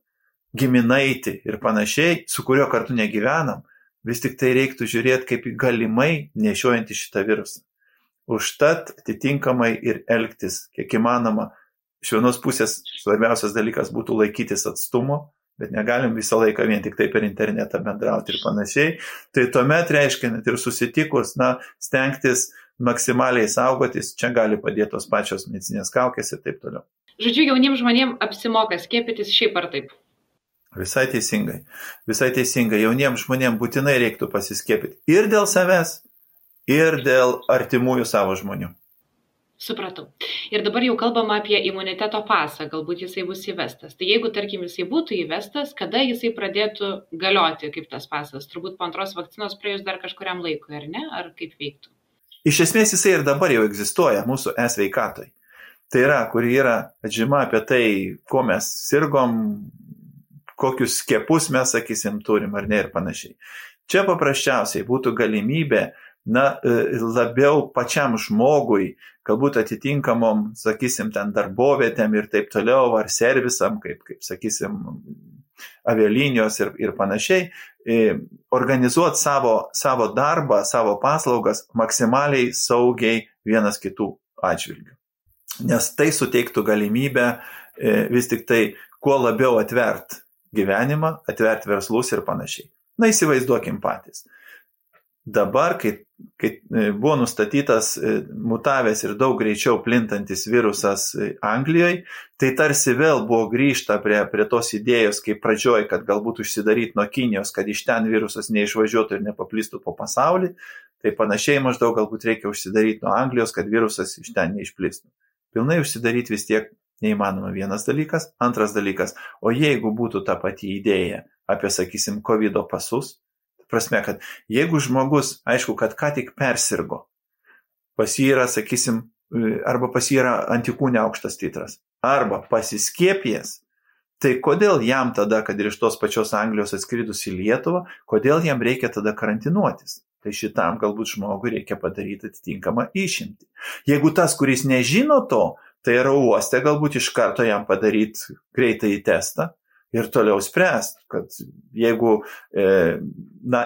giminaitį ir panašiai, su kuriuo kartu negyvenam, vis tik tai reiktų žiūrėti kaip galimai nešiojantį šitą virusą. Užtat atitinkamai ir elgtis, kiek įmanoma, iš vienos pusės svarbiausias dalykas būtų laikytis atstumo, bet negalim visą laiką vien tik tai per internetą bendrauti ir panašiai. Tai tuomet reiškia net ir susitikus, stengtis maksimaliai saugotis, čia gali padėti tos pačios medicinės kaukės ir taip toliau. Žodžiu, jauniems žmonėms apsimoka skiepytis šiaip ar taip? Visai teisingai. Jauniems žmonėms būtinai reiktų pasiskiepyti ir dėl savęs, ir dėl artimųjų savo žmonių. Supratau. Ir dabar jau kalbama apie imuniteto pasą, galbūt jisai bus įvestas. Tai jeigu, tarkim, jisai būtų įvestas, kada jisai pradėtų galioti kaip tas pasas? Turbūt po antros vakcinos praėjus dar kažkuriam laikui, ar ne? Ar kaip veiktų? Iš esmės jisai ir dabar jau egzistuoja mūsų e-sveikatoj. Tai yra, kur yra atžyma apie tai, ko mes sirgom, kokius skiepus mes, sakysim, turim ar ne ir panašiai. Čia paprasčiausiai būtų galimybė labiau pačiam žmogui, galbūt atitinkamom, sakysim, ten darbovietėm ir taip toliau, ar servisam, kaip sakysim, avialinijos ir panašiai, organizuoti savo darbą, savo paslaugas maksimaliai saugiai vienas kitų atžvilgių. Nes tai suteiktų galimybę vis tik tai kuo labiau atvert gyvenimą, atvert verslus ir panašiai. Įsivaizduokim patys. Dabar, kai buvo nustatytas mutavęs ir daug greičiau plintantis virusas Anglijoje, tai tarsi vėl buvo grįžta prie tos idėjos, kaip pradžioj, kad galbūt užsidaryti nuo Kinijos, kad iš ten virusas neišvažiuotų ir nepaplistų po pasaulį, tai panašiai maždaug galbūt reikia užsidaryti nuo Anglijos, kad virusas iš ten neišplistų. Pilnai užsidaryti vis tiek Neįmanoma vienas dalykas. Antras dalykas, o jeigu būtų ta pati idėja apie, sakysim, COVID pasus, prasme, kad jeigu žmogus, aišku, kad ką tik persirgo, pas jį yra, sakysim, arba pas jį yra antikūnė aukštas titras, arba pasiskiepijęs, tai kodėl jam tada, kad ir iš tos pačios Anglijos atskridus į Lietuvą, kodėl jam reikia tada karantinuotis? Tai šitam galbūt žmogui reikia padaryti atitinkamą išimtį. Jeigu tas, kuris nežino to, tai yra uoste galbūt iš karto jam padaryti greitąjį testą ir toliau spręsti, kad jeigu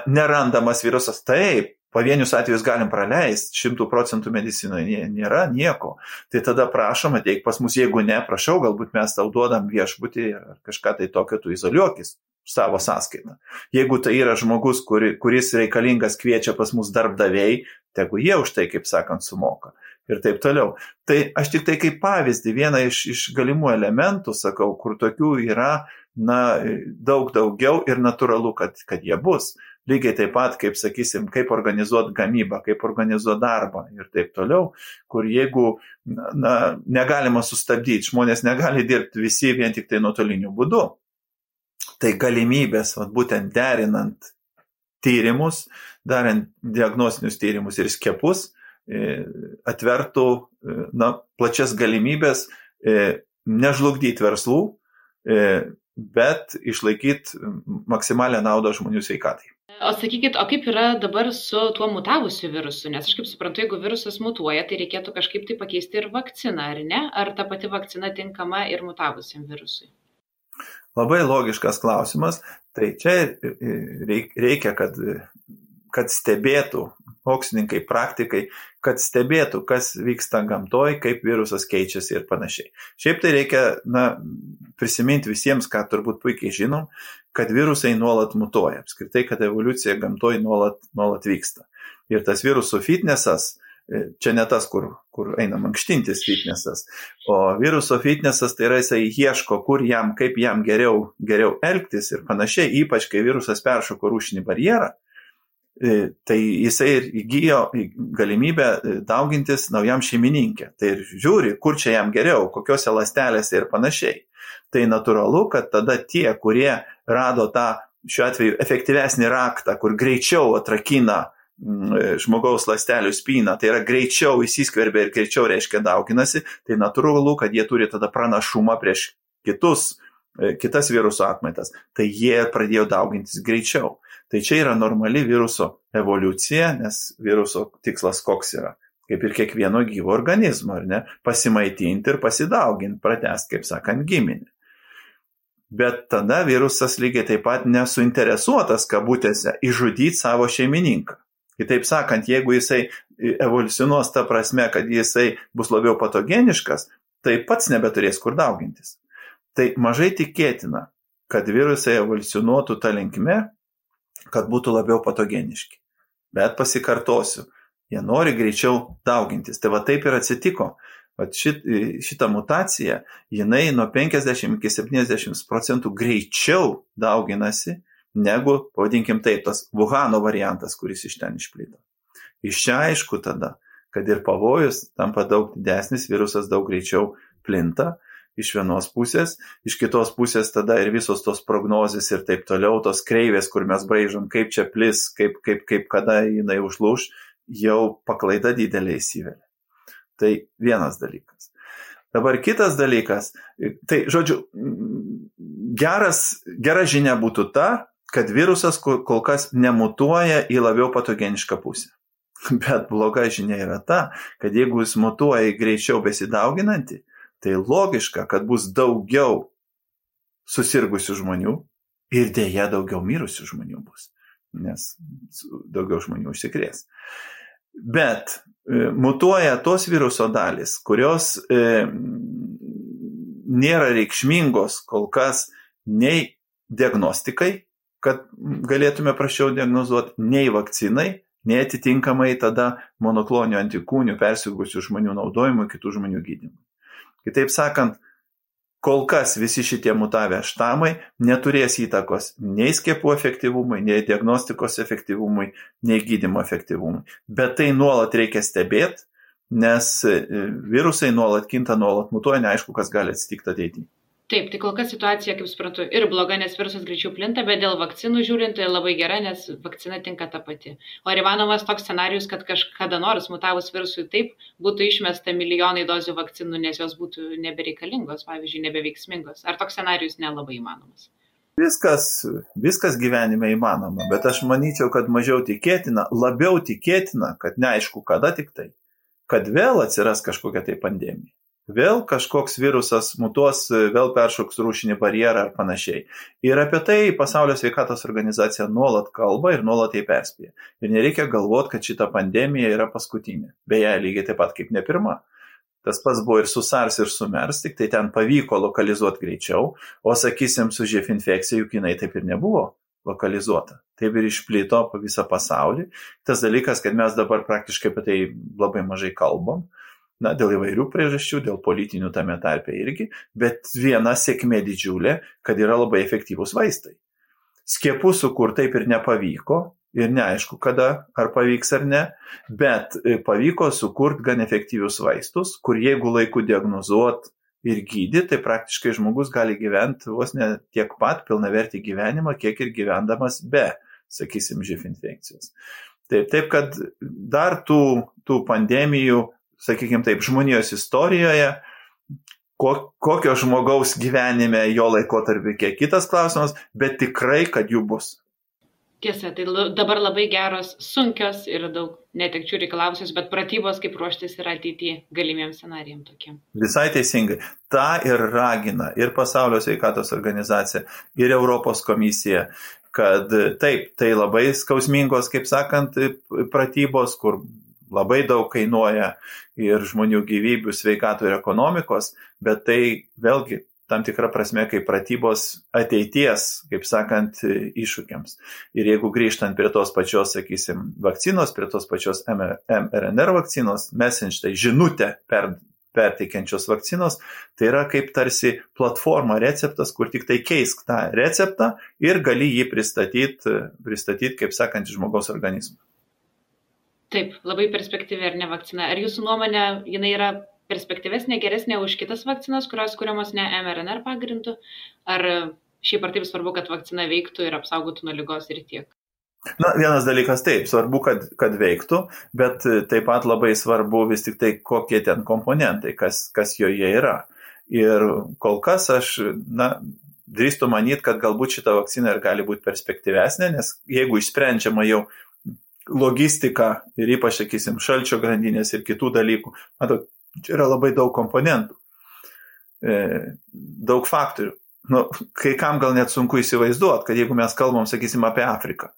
nerandamas virusas, taip, pavienius atvejus galim praleisti, 100% medicinoje nėra nieko. Tai tada prašom, ateik pas mus, jeigu ne, prašau, galbūt mes tau duodam viešbutį ar kažką tai tokio, tu izoliuokis savo sąskaitą. Jeigu tai yra žmogus, kuris reikalingas kviečia pas mus darbdaviai, tegu jie už tai, kaip sakant, sumoka. Ir taip toliau. Tai aš tik tai kaip pavyzdį, vieną iš galimų elementų, sakau, kur tokių yra daug daugiau ir natūralu, kad jie bus. Lygiai taip pat, kaip sakysim, kaip organizuoti gamybą, kaip organizuoti darbą ir taip toliau, kur jeigu negalima sustabdyti, žmonės negali dirbti visi vien tik tai nuotoliniu būdu. Tai galimybės, būtent derinant tyrimus, darant diagnostinius tyrimus ir skiepus, atvertų plačias galimybės nežlugdyti verslų, bet išlaikyti maksimalią naudą žmonių sveikatai. O sakykit, o kaip yra dabar su tuo mutavusiu virusu? Nes aš kaip suprantu, jeigu virusas mutuoja, tai reikėtų kažkaip tai pakeisti ir vakciną, ar ne? Ar ta pati vakcina tinkama ir mutavusiam virusui? Labai logiškas klausimas. Tai čia reikia, kad stebėtų mokslininkai, praktikai, kad stebėtų, kas vyksta gamtoj, kaip virusas keičiasi ir panašiai. Šiaip tai reikia prisiminti visiems, ką turbūt puikiai žinom, kad virusai nuolat mutuoja. Apskritai, kad evoliucija gamtoj nuolat vyksta. Ir tas virusų fitnesas, čia ne tas, kur eina mankštintis fitnesas, o viruso fitnesas tai yra jisai ieško, kaip jam geriau elgtis ir panašiai, ypač kai virusas peršoko rūšinį barjerą, tai jisai ir įgijo galimybę daugintis naujam šeimininkė. Tai ir žiūri, kur čia jam geriau, kokiose ląstelėse ir panašiai. Tai natūralu, kad tada tie, kurie rado tą, šiuo atveju, efektyvesnį raktą, kur greičiau atrakina žmogaus ląstelių spyną, tai yra greičiau įsiskverbia ir greičiau reiškia dauginasi, tai natūralu, kad jie turi tada pranašumą prieš kitas viruso atmaitas. Tai jie pradėjo daugintis greičiau. Tai čia yra normali viruso evoliucija, nes viruso tikslas koks yra. Kaip ir kiekvieno gyvo organizmo, ar ne? Pasimaitinti ir pasidauginti, pratęsti, kaip sakant, giminį. Bet tada virusas lygiai taip pat nesuinteresuotas, kabutėse, išžudyti savo šeimininką. Kitaip sakant, jeigu jisai evoliucionuos ta prasme, kad jisai bus labiau patogeniškas, tai pats nebeturės kur daugintis. Tai mažai tikėtina, kad virusai evoliucionuotų ta linkme, kad būtų labiau patogeniški. Bet pasikartosiu, jie nori greičiau daugintis. Tai va taip ir atsitiko. Šita mutacija, jinai nuo 50 iki 70% greičiau dauginasi, negu, pavadinkim taip, tas Wuhano variantas, kuris iš ten išplito. Iš čia aišku tada, kad ir pavojus tampa daug didesnis, virusas daug greičiau plinta iš vienos pusės, iš kitos pusės tada ir visos tos prognozės ir taip toliau, tos kreivės, kur mes braižom, kaip čia plis, kaip kada jinai užlūš, jau paklaida didelė įsivelia. Tai vienas dalykas. Dabar kitas dalykas, tai žodžiu, gera žinia būtų ta, kad virusas kol kas nemutuoja į labiau patogenišką pusę. Bet bloga žinia yra ta, kad jeigu jis mutuoja į greičiau besidauginantį, tai logiška, kad bus daugiau susirgusių žmonių ir dėja daugiau mirusių žmonių bus, nes daugiau žmonių užsikrės. Bet mutuoja tos viruso dalis, kurios nėra reikšmingos kol kas nei diagnostikai, kad galėtume prašiau diagnozuoti, nei vakcinai, nei atitinkamai tada monokloninių antikūnių persirgusių žmonių naudojimui, kitų žmonių gydymui. Kitaip sakant, kol kas visi šitie mutavę štamai neturės įtakos nei skiepų efektyvumui, nei diagnostikos efektyvumui, nei gydymo efektyvumui. Bet tai nuolat reikia stebėti, nes virusai nuolat kinta, nuolat mutuoja, neaišku, kas gali atsitikti ateityje. Taip, tai kol kas situacija, kaip suprantu, ir bloga, nes virusas greičiau plinta, bet dėl vakcinų žiūrint labai gera, nes vakcina tinka ta pati. O ar įmanomas toks scenarius, kad kažkada nors mutavus virusui taip būtų išmesta milijonai dozių vakcinų, nes jos būtų nebereikalingos, pavyzdžiui, nebeveiksmingos? Ar toks scenarius nelabai įmanomas? Viskas gyvenime įmanoma, bet aš manyčiau, kad mažiau tikėtina, labiau tikėtina, kad neaišku kada tik tai, kad vėl atsiras kažkokia tai pandemija. Vėl kažkoks virusas mutuos, vėl peršoks rūšinį barjerą ar panašiai. Ir apie tai Pasaulio sveikatos organizacija nuolat kalba ir nuolat jai perspėja. Ir nereikia galvoti, kad šita pandemija yra paskutinė. Beje, lygiai taip pat kaip ne pirma. Tas pats buvo ir su SARS ir su MERS, tik tai ten pavyko lokalizuoti greičiau, o sakysim, su živ infekcija juk jinai taip ir nebuvo lokalizuota. Taip ir išplito po visą pasaulį. Tas dalykas, kad mes dabar praktiškai apie tai labai mažai kalbam. Dėl įvairių priežasčių, dėl politinių tame tarpe irgi, bet viena sėkmė didžiulė, kad yra labai efektyvūs vaistai. Skiepų sukurti taip ir nepavyko, ir neaišku kada, ar pavyks ar ne, bet pavyko sukurti gan efektyvius vaistus, kur jeigu laiku diagnozuot ir gydyti, tai praktiškai žmogus gali gyventi vos ne tiek pat pilnavertį gyvenimą, kiek ir gyvendamas be, sakysim, živ infekcijos. Taip, kad dar tų pandemijų, sakykime taip, žmonijos istorijoje, kokio žmogaus gyvenime jo laikotarpį kiek kitas klausimas, bet tikrai, kad jų bus. Tiesa, tai dabar labai geros, sunkios ir daug netekčių reikalavusios, bet pratybos kaip ruoštis yra ateityje galimiems scenarijams tokiem. Visai teisingai. Ta ir ragina ir Pasaulio sveikatos organizacija, ir Europos komisija, kad taip, tai labai skausmingos, kaip sakant, pratybos, kur labai daug kainuoja ir žmonių gyvybių, sveikatų ir ekonomikos, bet tai vėlgi tam tikra prasme kaip pratybos ateities, kaip sakant, iššūkiams. Ir jeigu grįžtant prie tos pačios, sakysim, vakcinos, prie tos pačios mRNA vakcinos, messenger, tai žinutę perteikiančios vakcinos, tai yra kaip tarsi platforma, receptas, kur tik tai keisk tą receptą ir gali jį pristatyti kaip sakant, žmogaus organizmą. Taip, labai perspektyvi ar ne vakcina. Ar jūsų nuomonė, jinai yra perspektyvesnė, geresnė už kitas vakcinas, kurios kuriamos ne mRNA pagrindu? Ar šiaip ar taip svarbu, kad vakcina veiktų ir apsaugotų nuo ligos ir tiek? Vienas dalykas taip, svarbu, kad veiktų, bet taip pat labai svarbu vis tik tai, kokie ten komponentai, kas joje yra. Ir kol kas aš, drįstu manyti, kad galbūt šita vakcina ir gali būti perspektyvesnė, nes jeigu išsprendžiama jau logistika ir ypač, sakysim, šalčio grandinės ir kitų dalykų. Čia yra labai daug komponentų, daug faktorių. Kai kam gal net sunku įsivaizduoti, kad jeigu mes kalbam, sakysim, apie Afriką,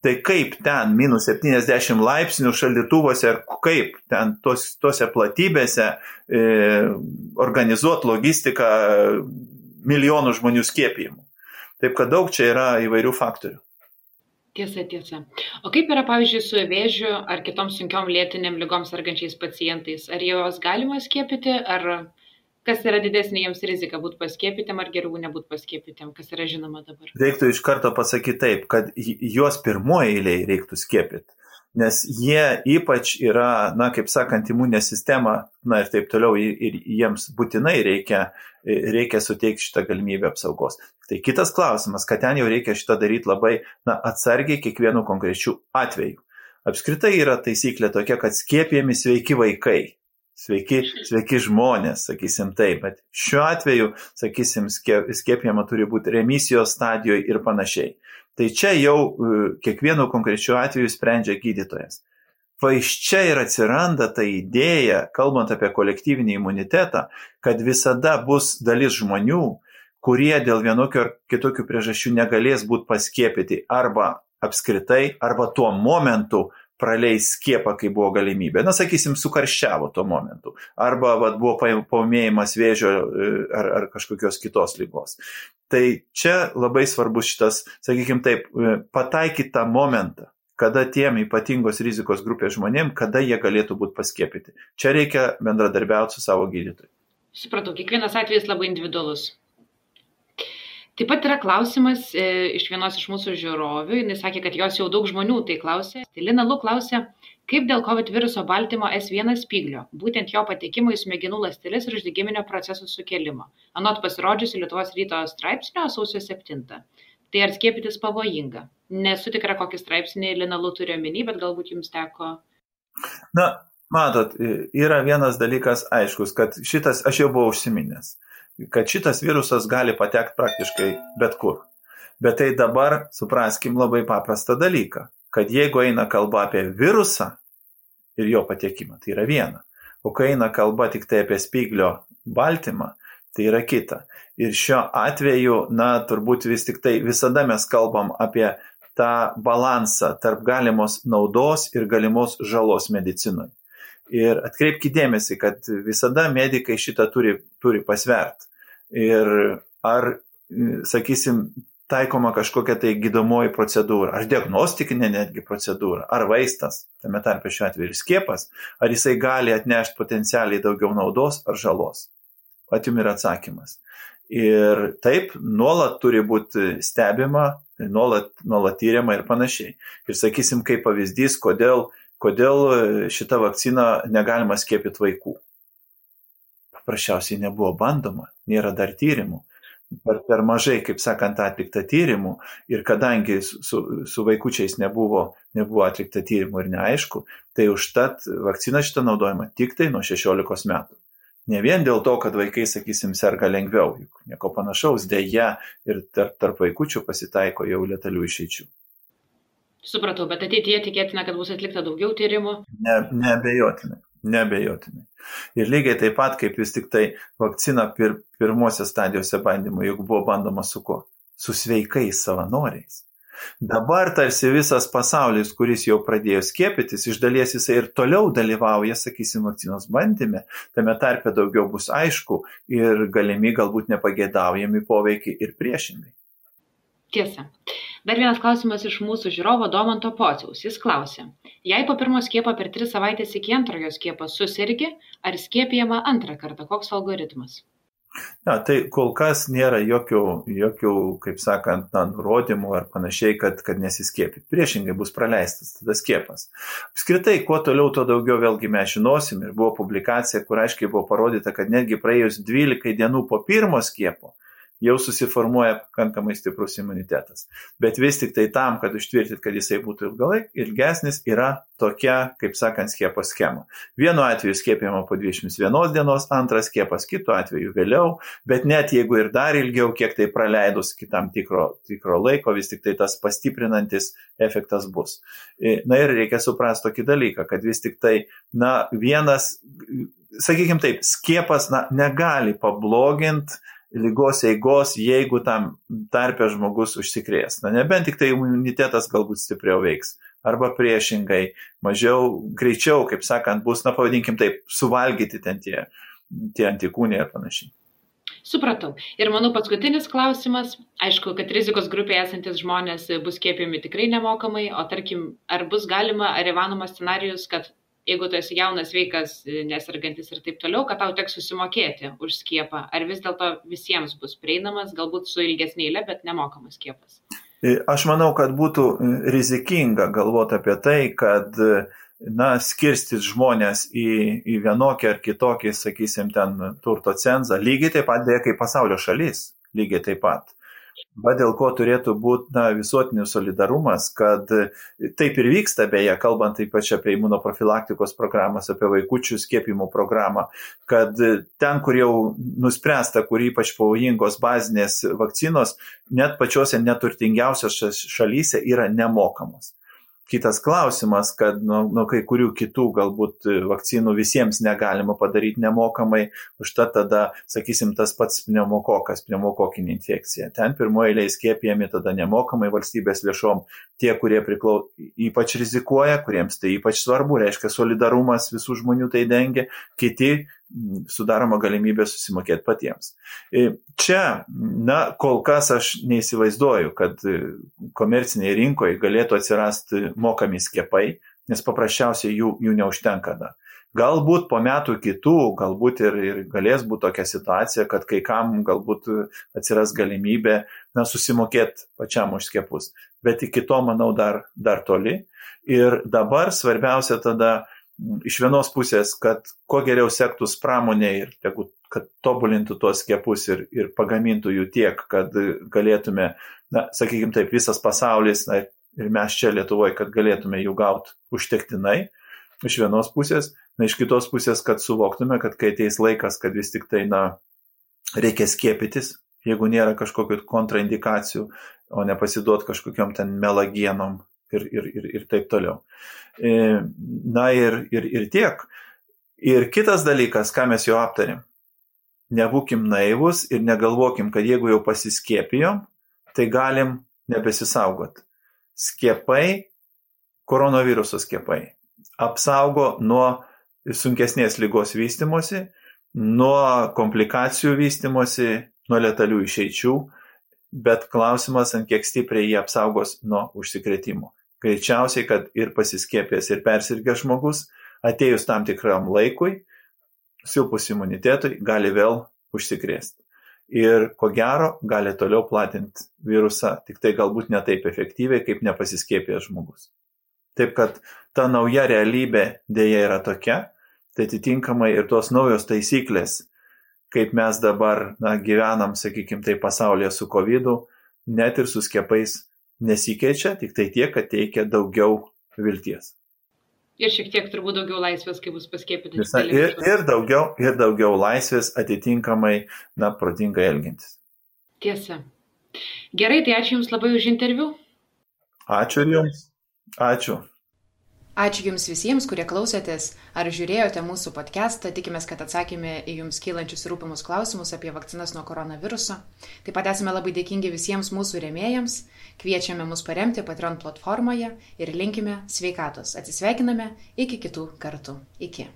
tai kaip ten minus 70 laipsnių šaldytuvose ir kaip ten tose platybėse organizuoti logistiką milijonų žmonių skiepijimų. Taip kad daug čia yra įvairių faktorių. Tiesa. O kaip yra, pavyzdžiui, su vėžiu ar kitom sunkiom lėtinėm ligom sergančiais pacientais? Ar juos galima skiepyti, ar kas yra didesnė jiems rizika būti paskiepytėm ar geriau nebūti paskiepytėm, kas yra žinoma dabar? Reiktų iš karto pasakyti taip, kad juos pirmoje eilėje reiktų skiepyti, nes jie ypač yra, kaip sakant, imuninė sistema, ir taip toliau, ir jiems būtinai reikia suteikti šitą galimybę apsaugos. Tai kitas klausimas, kad ten jau reikia šitą daryti labai atsargiai kiekvienu konkrečiu atveju. Apskritai yra taisyklė tokia, kad skiepijami sveiki vaikai, sveiki žmonės, sakysim taip, bet šiuo atveju, sakysim, skiepijama turi būti remisijos stadijoje ir panašiai. Tai čia jau kiekvienu konkrečiu atveju sprendžia gydytojas. Va iš čia ir atsiranda ta idėja, kalbant apie kolektyvinį imunitetą, kad visada bus dalis žmonių, kurie dėl vienokio ar kitokių priežasčių negalės būti paskiepyti arba apskritai, arba tuo momentu praleis skiepą, kai buvo galimybė. Sakysim, sukarščiavo tuo momentu. Arba buvo paūmėjimas vėžio ar kažkokios kitos ligos. Tai čia labai svarbus šitas, sakykim taip, pataikyti tą momentą, kada tiem ypatingos rizikos grupės žmonėm, kada jie galėtų būti paskiepyti. Čia reikia bendradarbiauti su savo gydytoju. Supratau, kiekvienas atvejis labai individualus. Taip pat yra klausimas iš vienos iš mūsų žiūrovių, jis sakė, kad jos jau daug žmonių tai klausė. Tai Lina Lu klausė, kaip dėl COVID viruso baltymo S1 spyglio, būtent jo patekimo į smegenų ląsteles ir uždegiminio procesų sukėlimo. Anot pasirodžiusi Lietuvos ryto straipsnio sausio 7. Tai ar skiepytis pavojinga? Nesu tikra, kokį straipsnį Lina Lu turi omeny, bet galbūt jums teko. Na, matot, yra vienas dalykas aiškus, kad šitas, aš jau buvau užsiminęs, kad šitas virusas gali patekti praktiškai bet kur. Bet tai dabar supraskim labai paprastą dalyką, kad jeigu eina kalba apie virusą ir jo patekimą, tai yra viena. O kai eina kalba tik tai apie spyglio baltymą, tai yra kita. Ir šiuo atveju, turbūt vis tik tai visada mes kalbam apie tą balansą tarp galimos naudos ir galimos žalos medicinui. Ir atkreipkite dėmesį, kad visada medikai šitą turi pasvert. Ir ar, sakysim, taikoma kažkokia tai gydomoji procedūra, ar diagnostikinė netgi procedūra, ar vaistas, tame tarpe šiuo atveju ir skiepas, ar jisai gali atnešti potencialiai daugiau naudos ar žalos. Atim yra atsakymas. Ir taip, nuolat turi būti stebima, nuolat tyriama ir panašiai. Ir sakysim, kaip pavyzdys, kodėl šitą vakciną negalima skiepyti vaikų. Paprasčiausiai nebuvo bandoma, nėra dar tyrimų. Per mažai, kaip sakant, atlikta tyrimų ir kadangi su vaikučiais nebuvo atlikta tyrimų ir neaišku, tai užtat vakcina šitą naudojama tik tai nuo 16 metų. Ne vien dėl to, kad vaikai, sakysim, serga lengviau, juk nieko panašaus, deja ir tarp vaikučių pasitaiko jau letalių išeičių. Supratau, bet ateityje tikėtina, kad bus atlikta daugiau tyrimų? Neabejotinai. Ir lygiai taip pat, kaip vis tik tai vakcina pirmosios stadijose bandymų, juk buvo bandoma su kuo? Su sveikais savanoriais. Dabar tarsi visas pasaulis, kuris jau pradėjo skiepytis, iš dalies jisai ir toliau dalyvauja, sakysim, vakcinos bandyme, tame tarpe daugiau bus aišku ir galimi galbūt nepageidaujami poveikiai ir priešingai. Tiesa. Dar vienas klausimas iš mūsų žiūrovo Domanto Pociaus. Jis klausė, jei po pirmo skiepo per 3 savaitės iki antrojo skiepo susirgi, ar skiepijama antrą kartą? Koks algoritmas? Tai kol kas nėra jokių kaip sakant, nurodymų ar panašiai, kad nesiskiepyti. Priešingai bus praleistas tada skiepas. Apskritai, kuo toliau, to daugiau vėlgi mes žinosim. Ir buvo publikacija, kur aiškiai buvo parodyta, kad netgi praėjus 12 dienų po pirmo skiepo jau susiformuoja pakankamai stiprus imunitetas. Bet vis tik tai tam, kad užtvirtinti, kad jisai būtų ilgesnis, yra tokia, kaip sakant, skiepo schema. Vienu atveju skiepijama po 21 dienos, antras skiepas kitu atveju vėliau, bet net jeigu ir dar ilgiau, kiek tai praleidus kitam tikro laiko, vis tik tai tas pastiprinantis efektas bus. Na ir reikia suprasti tokį dalyką, kad vis tik tai, vienas, sakykime taip, skiepas negali pabloginti ligos eigos, jeigu tam tarpe žmogus užsikrės. Nebent tik tai imunitetas galbūt stipriau veiks. Arba priešingai, greičiau, kaip sakant, bus, pavadinkim taip, suvalgyti ten tie antikūniai ir panašiai. Supratau. Ir manau paskutinis klausimas, aišku, kad rizikos grupėje esantis žmonės bus skiepijami tikrai nemokamai, o tarkim, ar bus galima, ar įmanomas scenarijus, kad jeigu tu esi jaunas, sveikas, nesergantis ir taip toliau, kad tau teks susimokėti už skiepą, ar vis dėlto visiems bus prieinamas, galbūt su ilgesnė eile, bet nemokamas skiepas? Aš manau, kad būtų rizikinga galvoti apie tai, kad skirstyt žmonės į vienokį ar kitokį, sakysim, ten turto cenzą, lygiai taip pat dėja kaip pasaulio šalis, lygiai taip pat. Bet dėl ko turėtų būti visuotinis solidarumas, kad taip ir vyksta, beje, kalbant ypač apie imunoprofilaktikos programas, apie vaikučių skiepimo programą, kad ten, kur jau nuspręsta, kur ypač pavojingos bazinės vakcinos, net pačiose neturtingiausiose šalyse yra nemokamos. Kitas klausimas, kad nuo kai kurių kitų galbūt vakcinų visiems negalima padaryti nemokamai, užtat tada, sakysim, tas pats pneumokokinė infekcija. Ten pirmoje eilėje skiepijami tada nemokamai valstybės lėšom tie, kurie ypač rizikuoja, kuriems tai ypač svarbu, reiškia solidarumas visų žmonių tai dengia, kiti sudaroma galimybė susimokėti patiems. Čia, kol kas aš neįsivaizduoju, kad komercinėje rinkoje galėtų atsirasti mokami skiepai, nes paprasčiausiai jų neužtenka dar. Galbūt po metų kitų, galbūt ir galės būti tokia situacija, kad kai kam galbūt atsiras galimybė susimokėti pačiam už skiepus. Bet iki to, manau, dar toli. Ir dabar svarbiausia tada iš vienos pusės, kad kuo geriau sektųs pramonė ir kad tobulintų tuos skiepus ir pagamintų jų tiek, kad galėtume, sakykime taip, visas pasaulis ir mes čia Lietuvoje, kad galėtume jų gauti užtektinai. Iš vienos pusės, iš kitos pusės, kad suvoktume, kad kai ateis laikas, kad vis tik tai, reikia skiepytis, jeigu nėra kažkokių kontraindikacijų, o nepasiduot kažkokiom ten melagienom ir taip toliau. Ir tiek. Ir kitas dalykas, ką mes jau aptarėm, nebūkim naivus ir negalvokim, kad jeigu jau pasiskiepijom, tai galim nebesisaugot. Skiepai, koronaviruso skiepai, apsaugo nuo sunkesnės ligos vystymosi, nuo komplikacijų vystymosi, nuo letalių išeičių, bet klausimas, ant kiek stipriai jie apsaugos nuo užsikrėtimų. Greičiausiai, kad ir pasiskiepęs, ir persirgęs žmogus, atėjus tam tikram laikui, silpus imunitetui, gali vėl užsikrėsti. Ir ko gero, gali toliau platinti virusą, tik tai galbūt ne taip efektyviai, kaip nepasiskiepęs žmogus. Taip kad ta nauja realybė dėja yra tokia, tai atitinkamai ir tos naujos taisyklės, kaip mes dabar gyvenam, sakykime, tai pasaulyje su COVID-u, net ir su skiepais nesikeičia, tik tai tiek, kad teikia daugiau vilties. Ir šiek tiek turbūt daugiau laisvės, kai bus paskiepyti. Ir daugiau laisvės atitinkamai, protingai elgintis. Tiesa. Gerai, tai ačiū Jums labai už interviu. Ačiū ir Jums. Ačiū. Ačiū Jums visiems, kurie klausėtės ar žiūrėjote mūsų podcastą. Tikimės, kad atsakėme į Jums kylančius rūpimus klausimus apie vakcinas nuo koronaviruso. Taip pat esame labai dėkingi visiems mūsų rėmėjams. Kviečiame mus paremti Patreon platformoje ir linkime sveikatos. Atsisveikiname iki kitų kartų. Iki.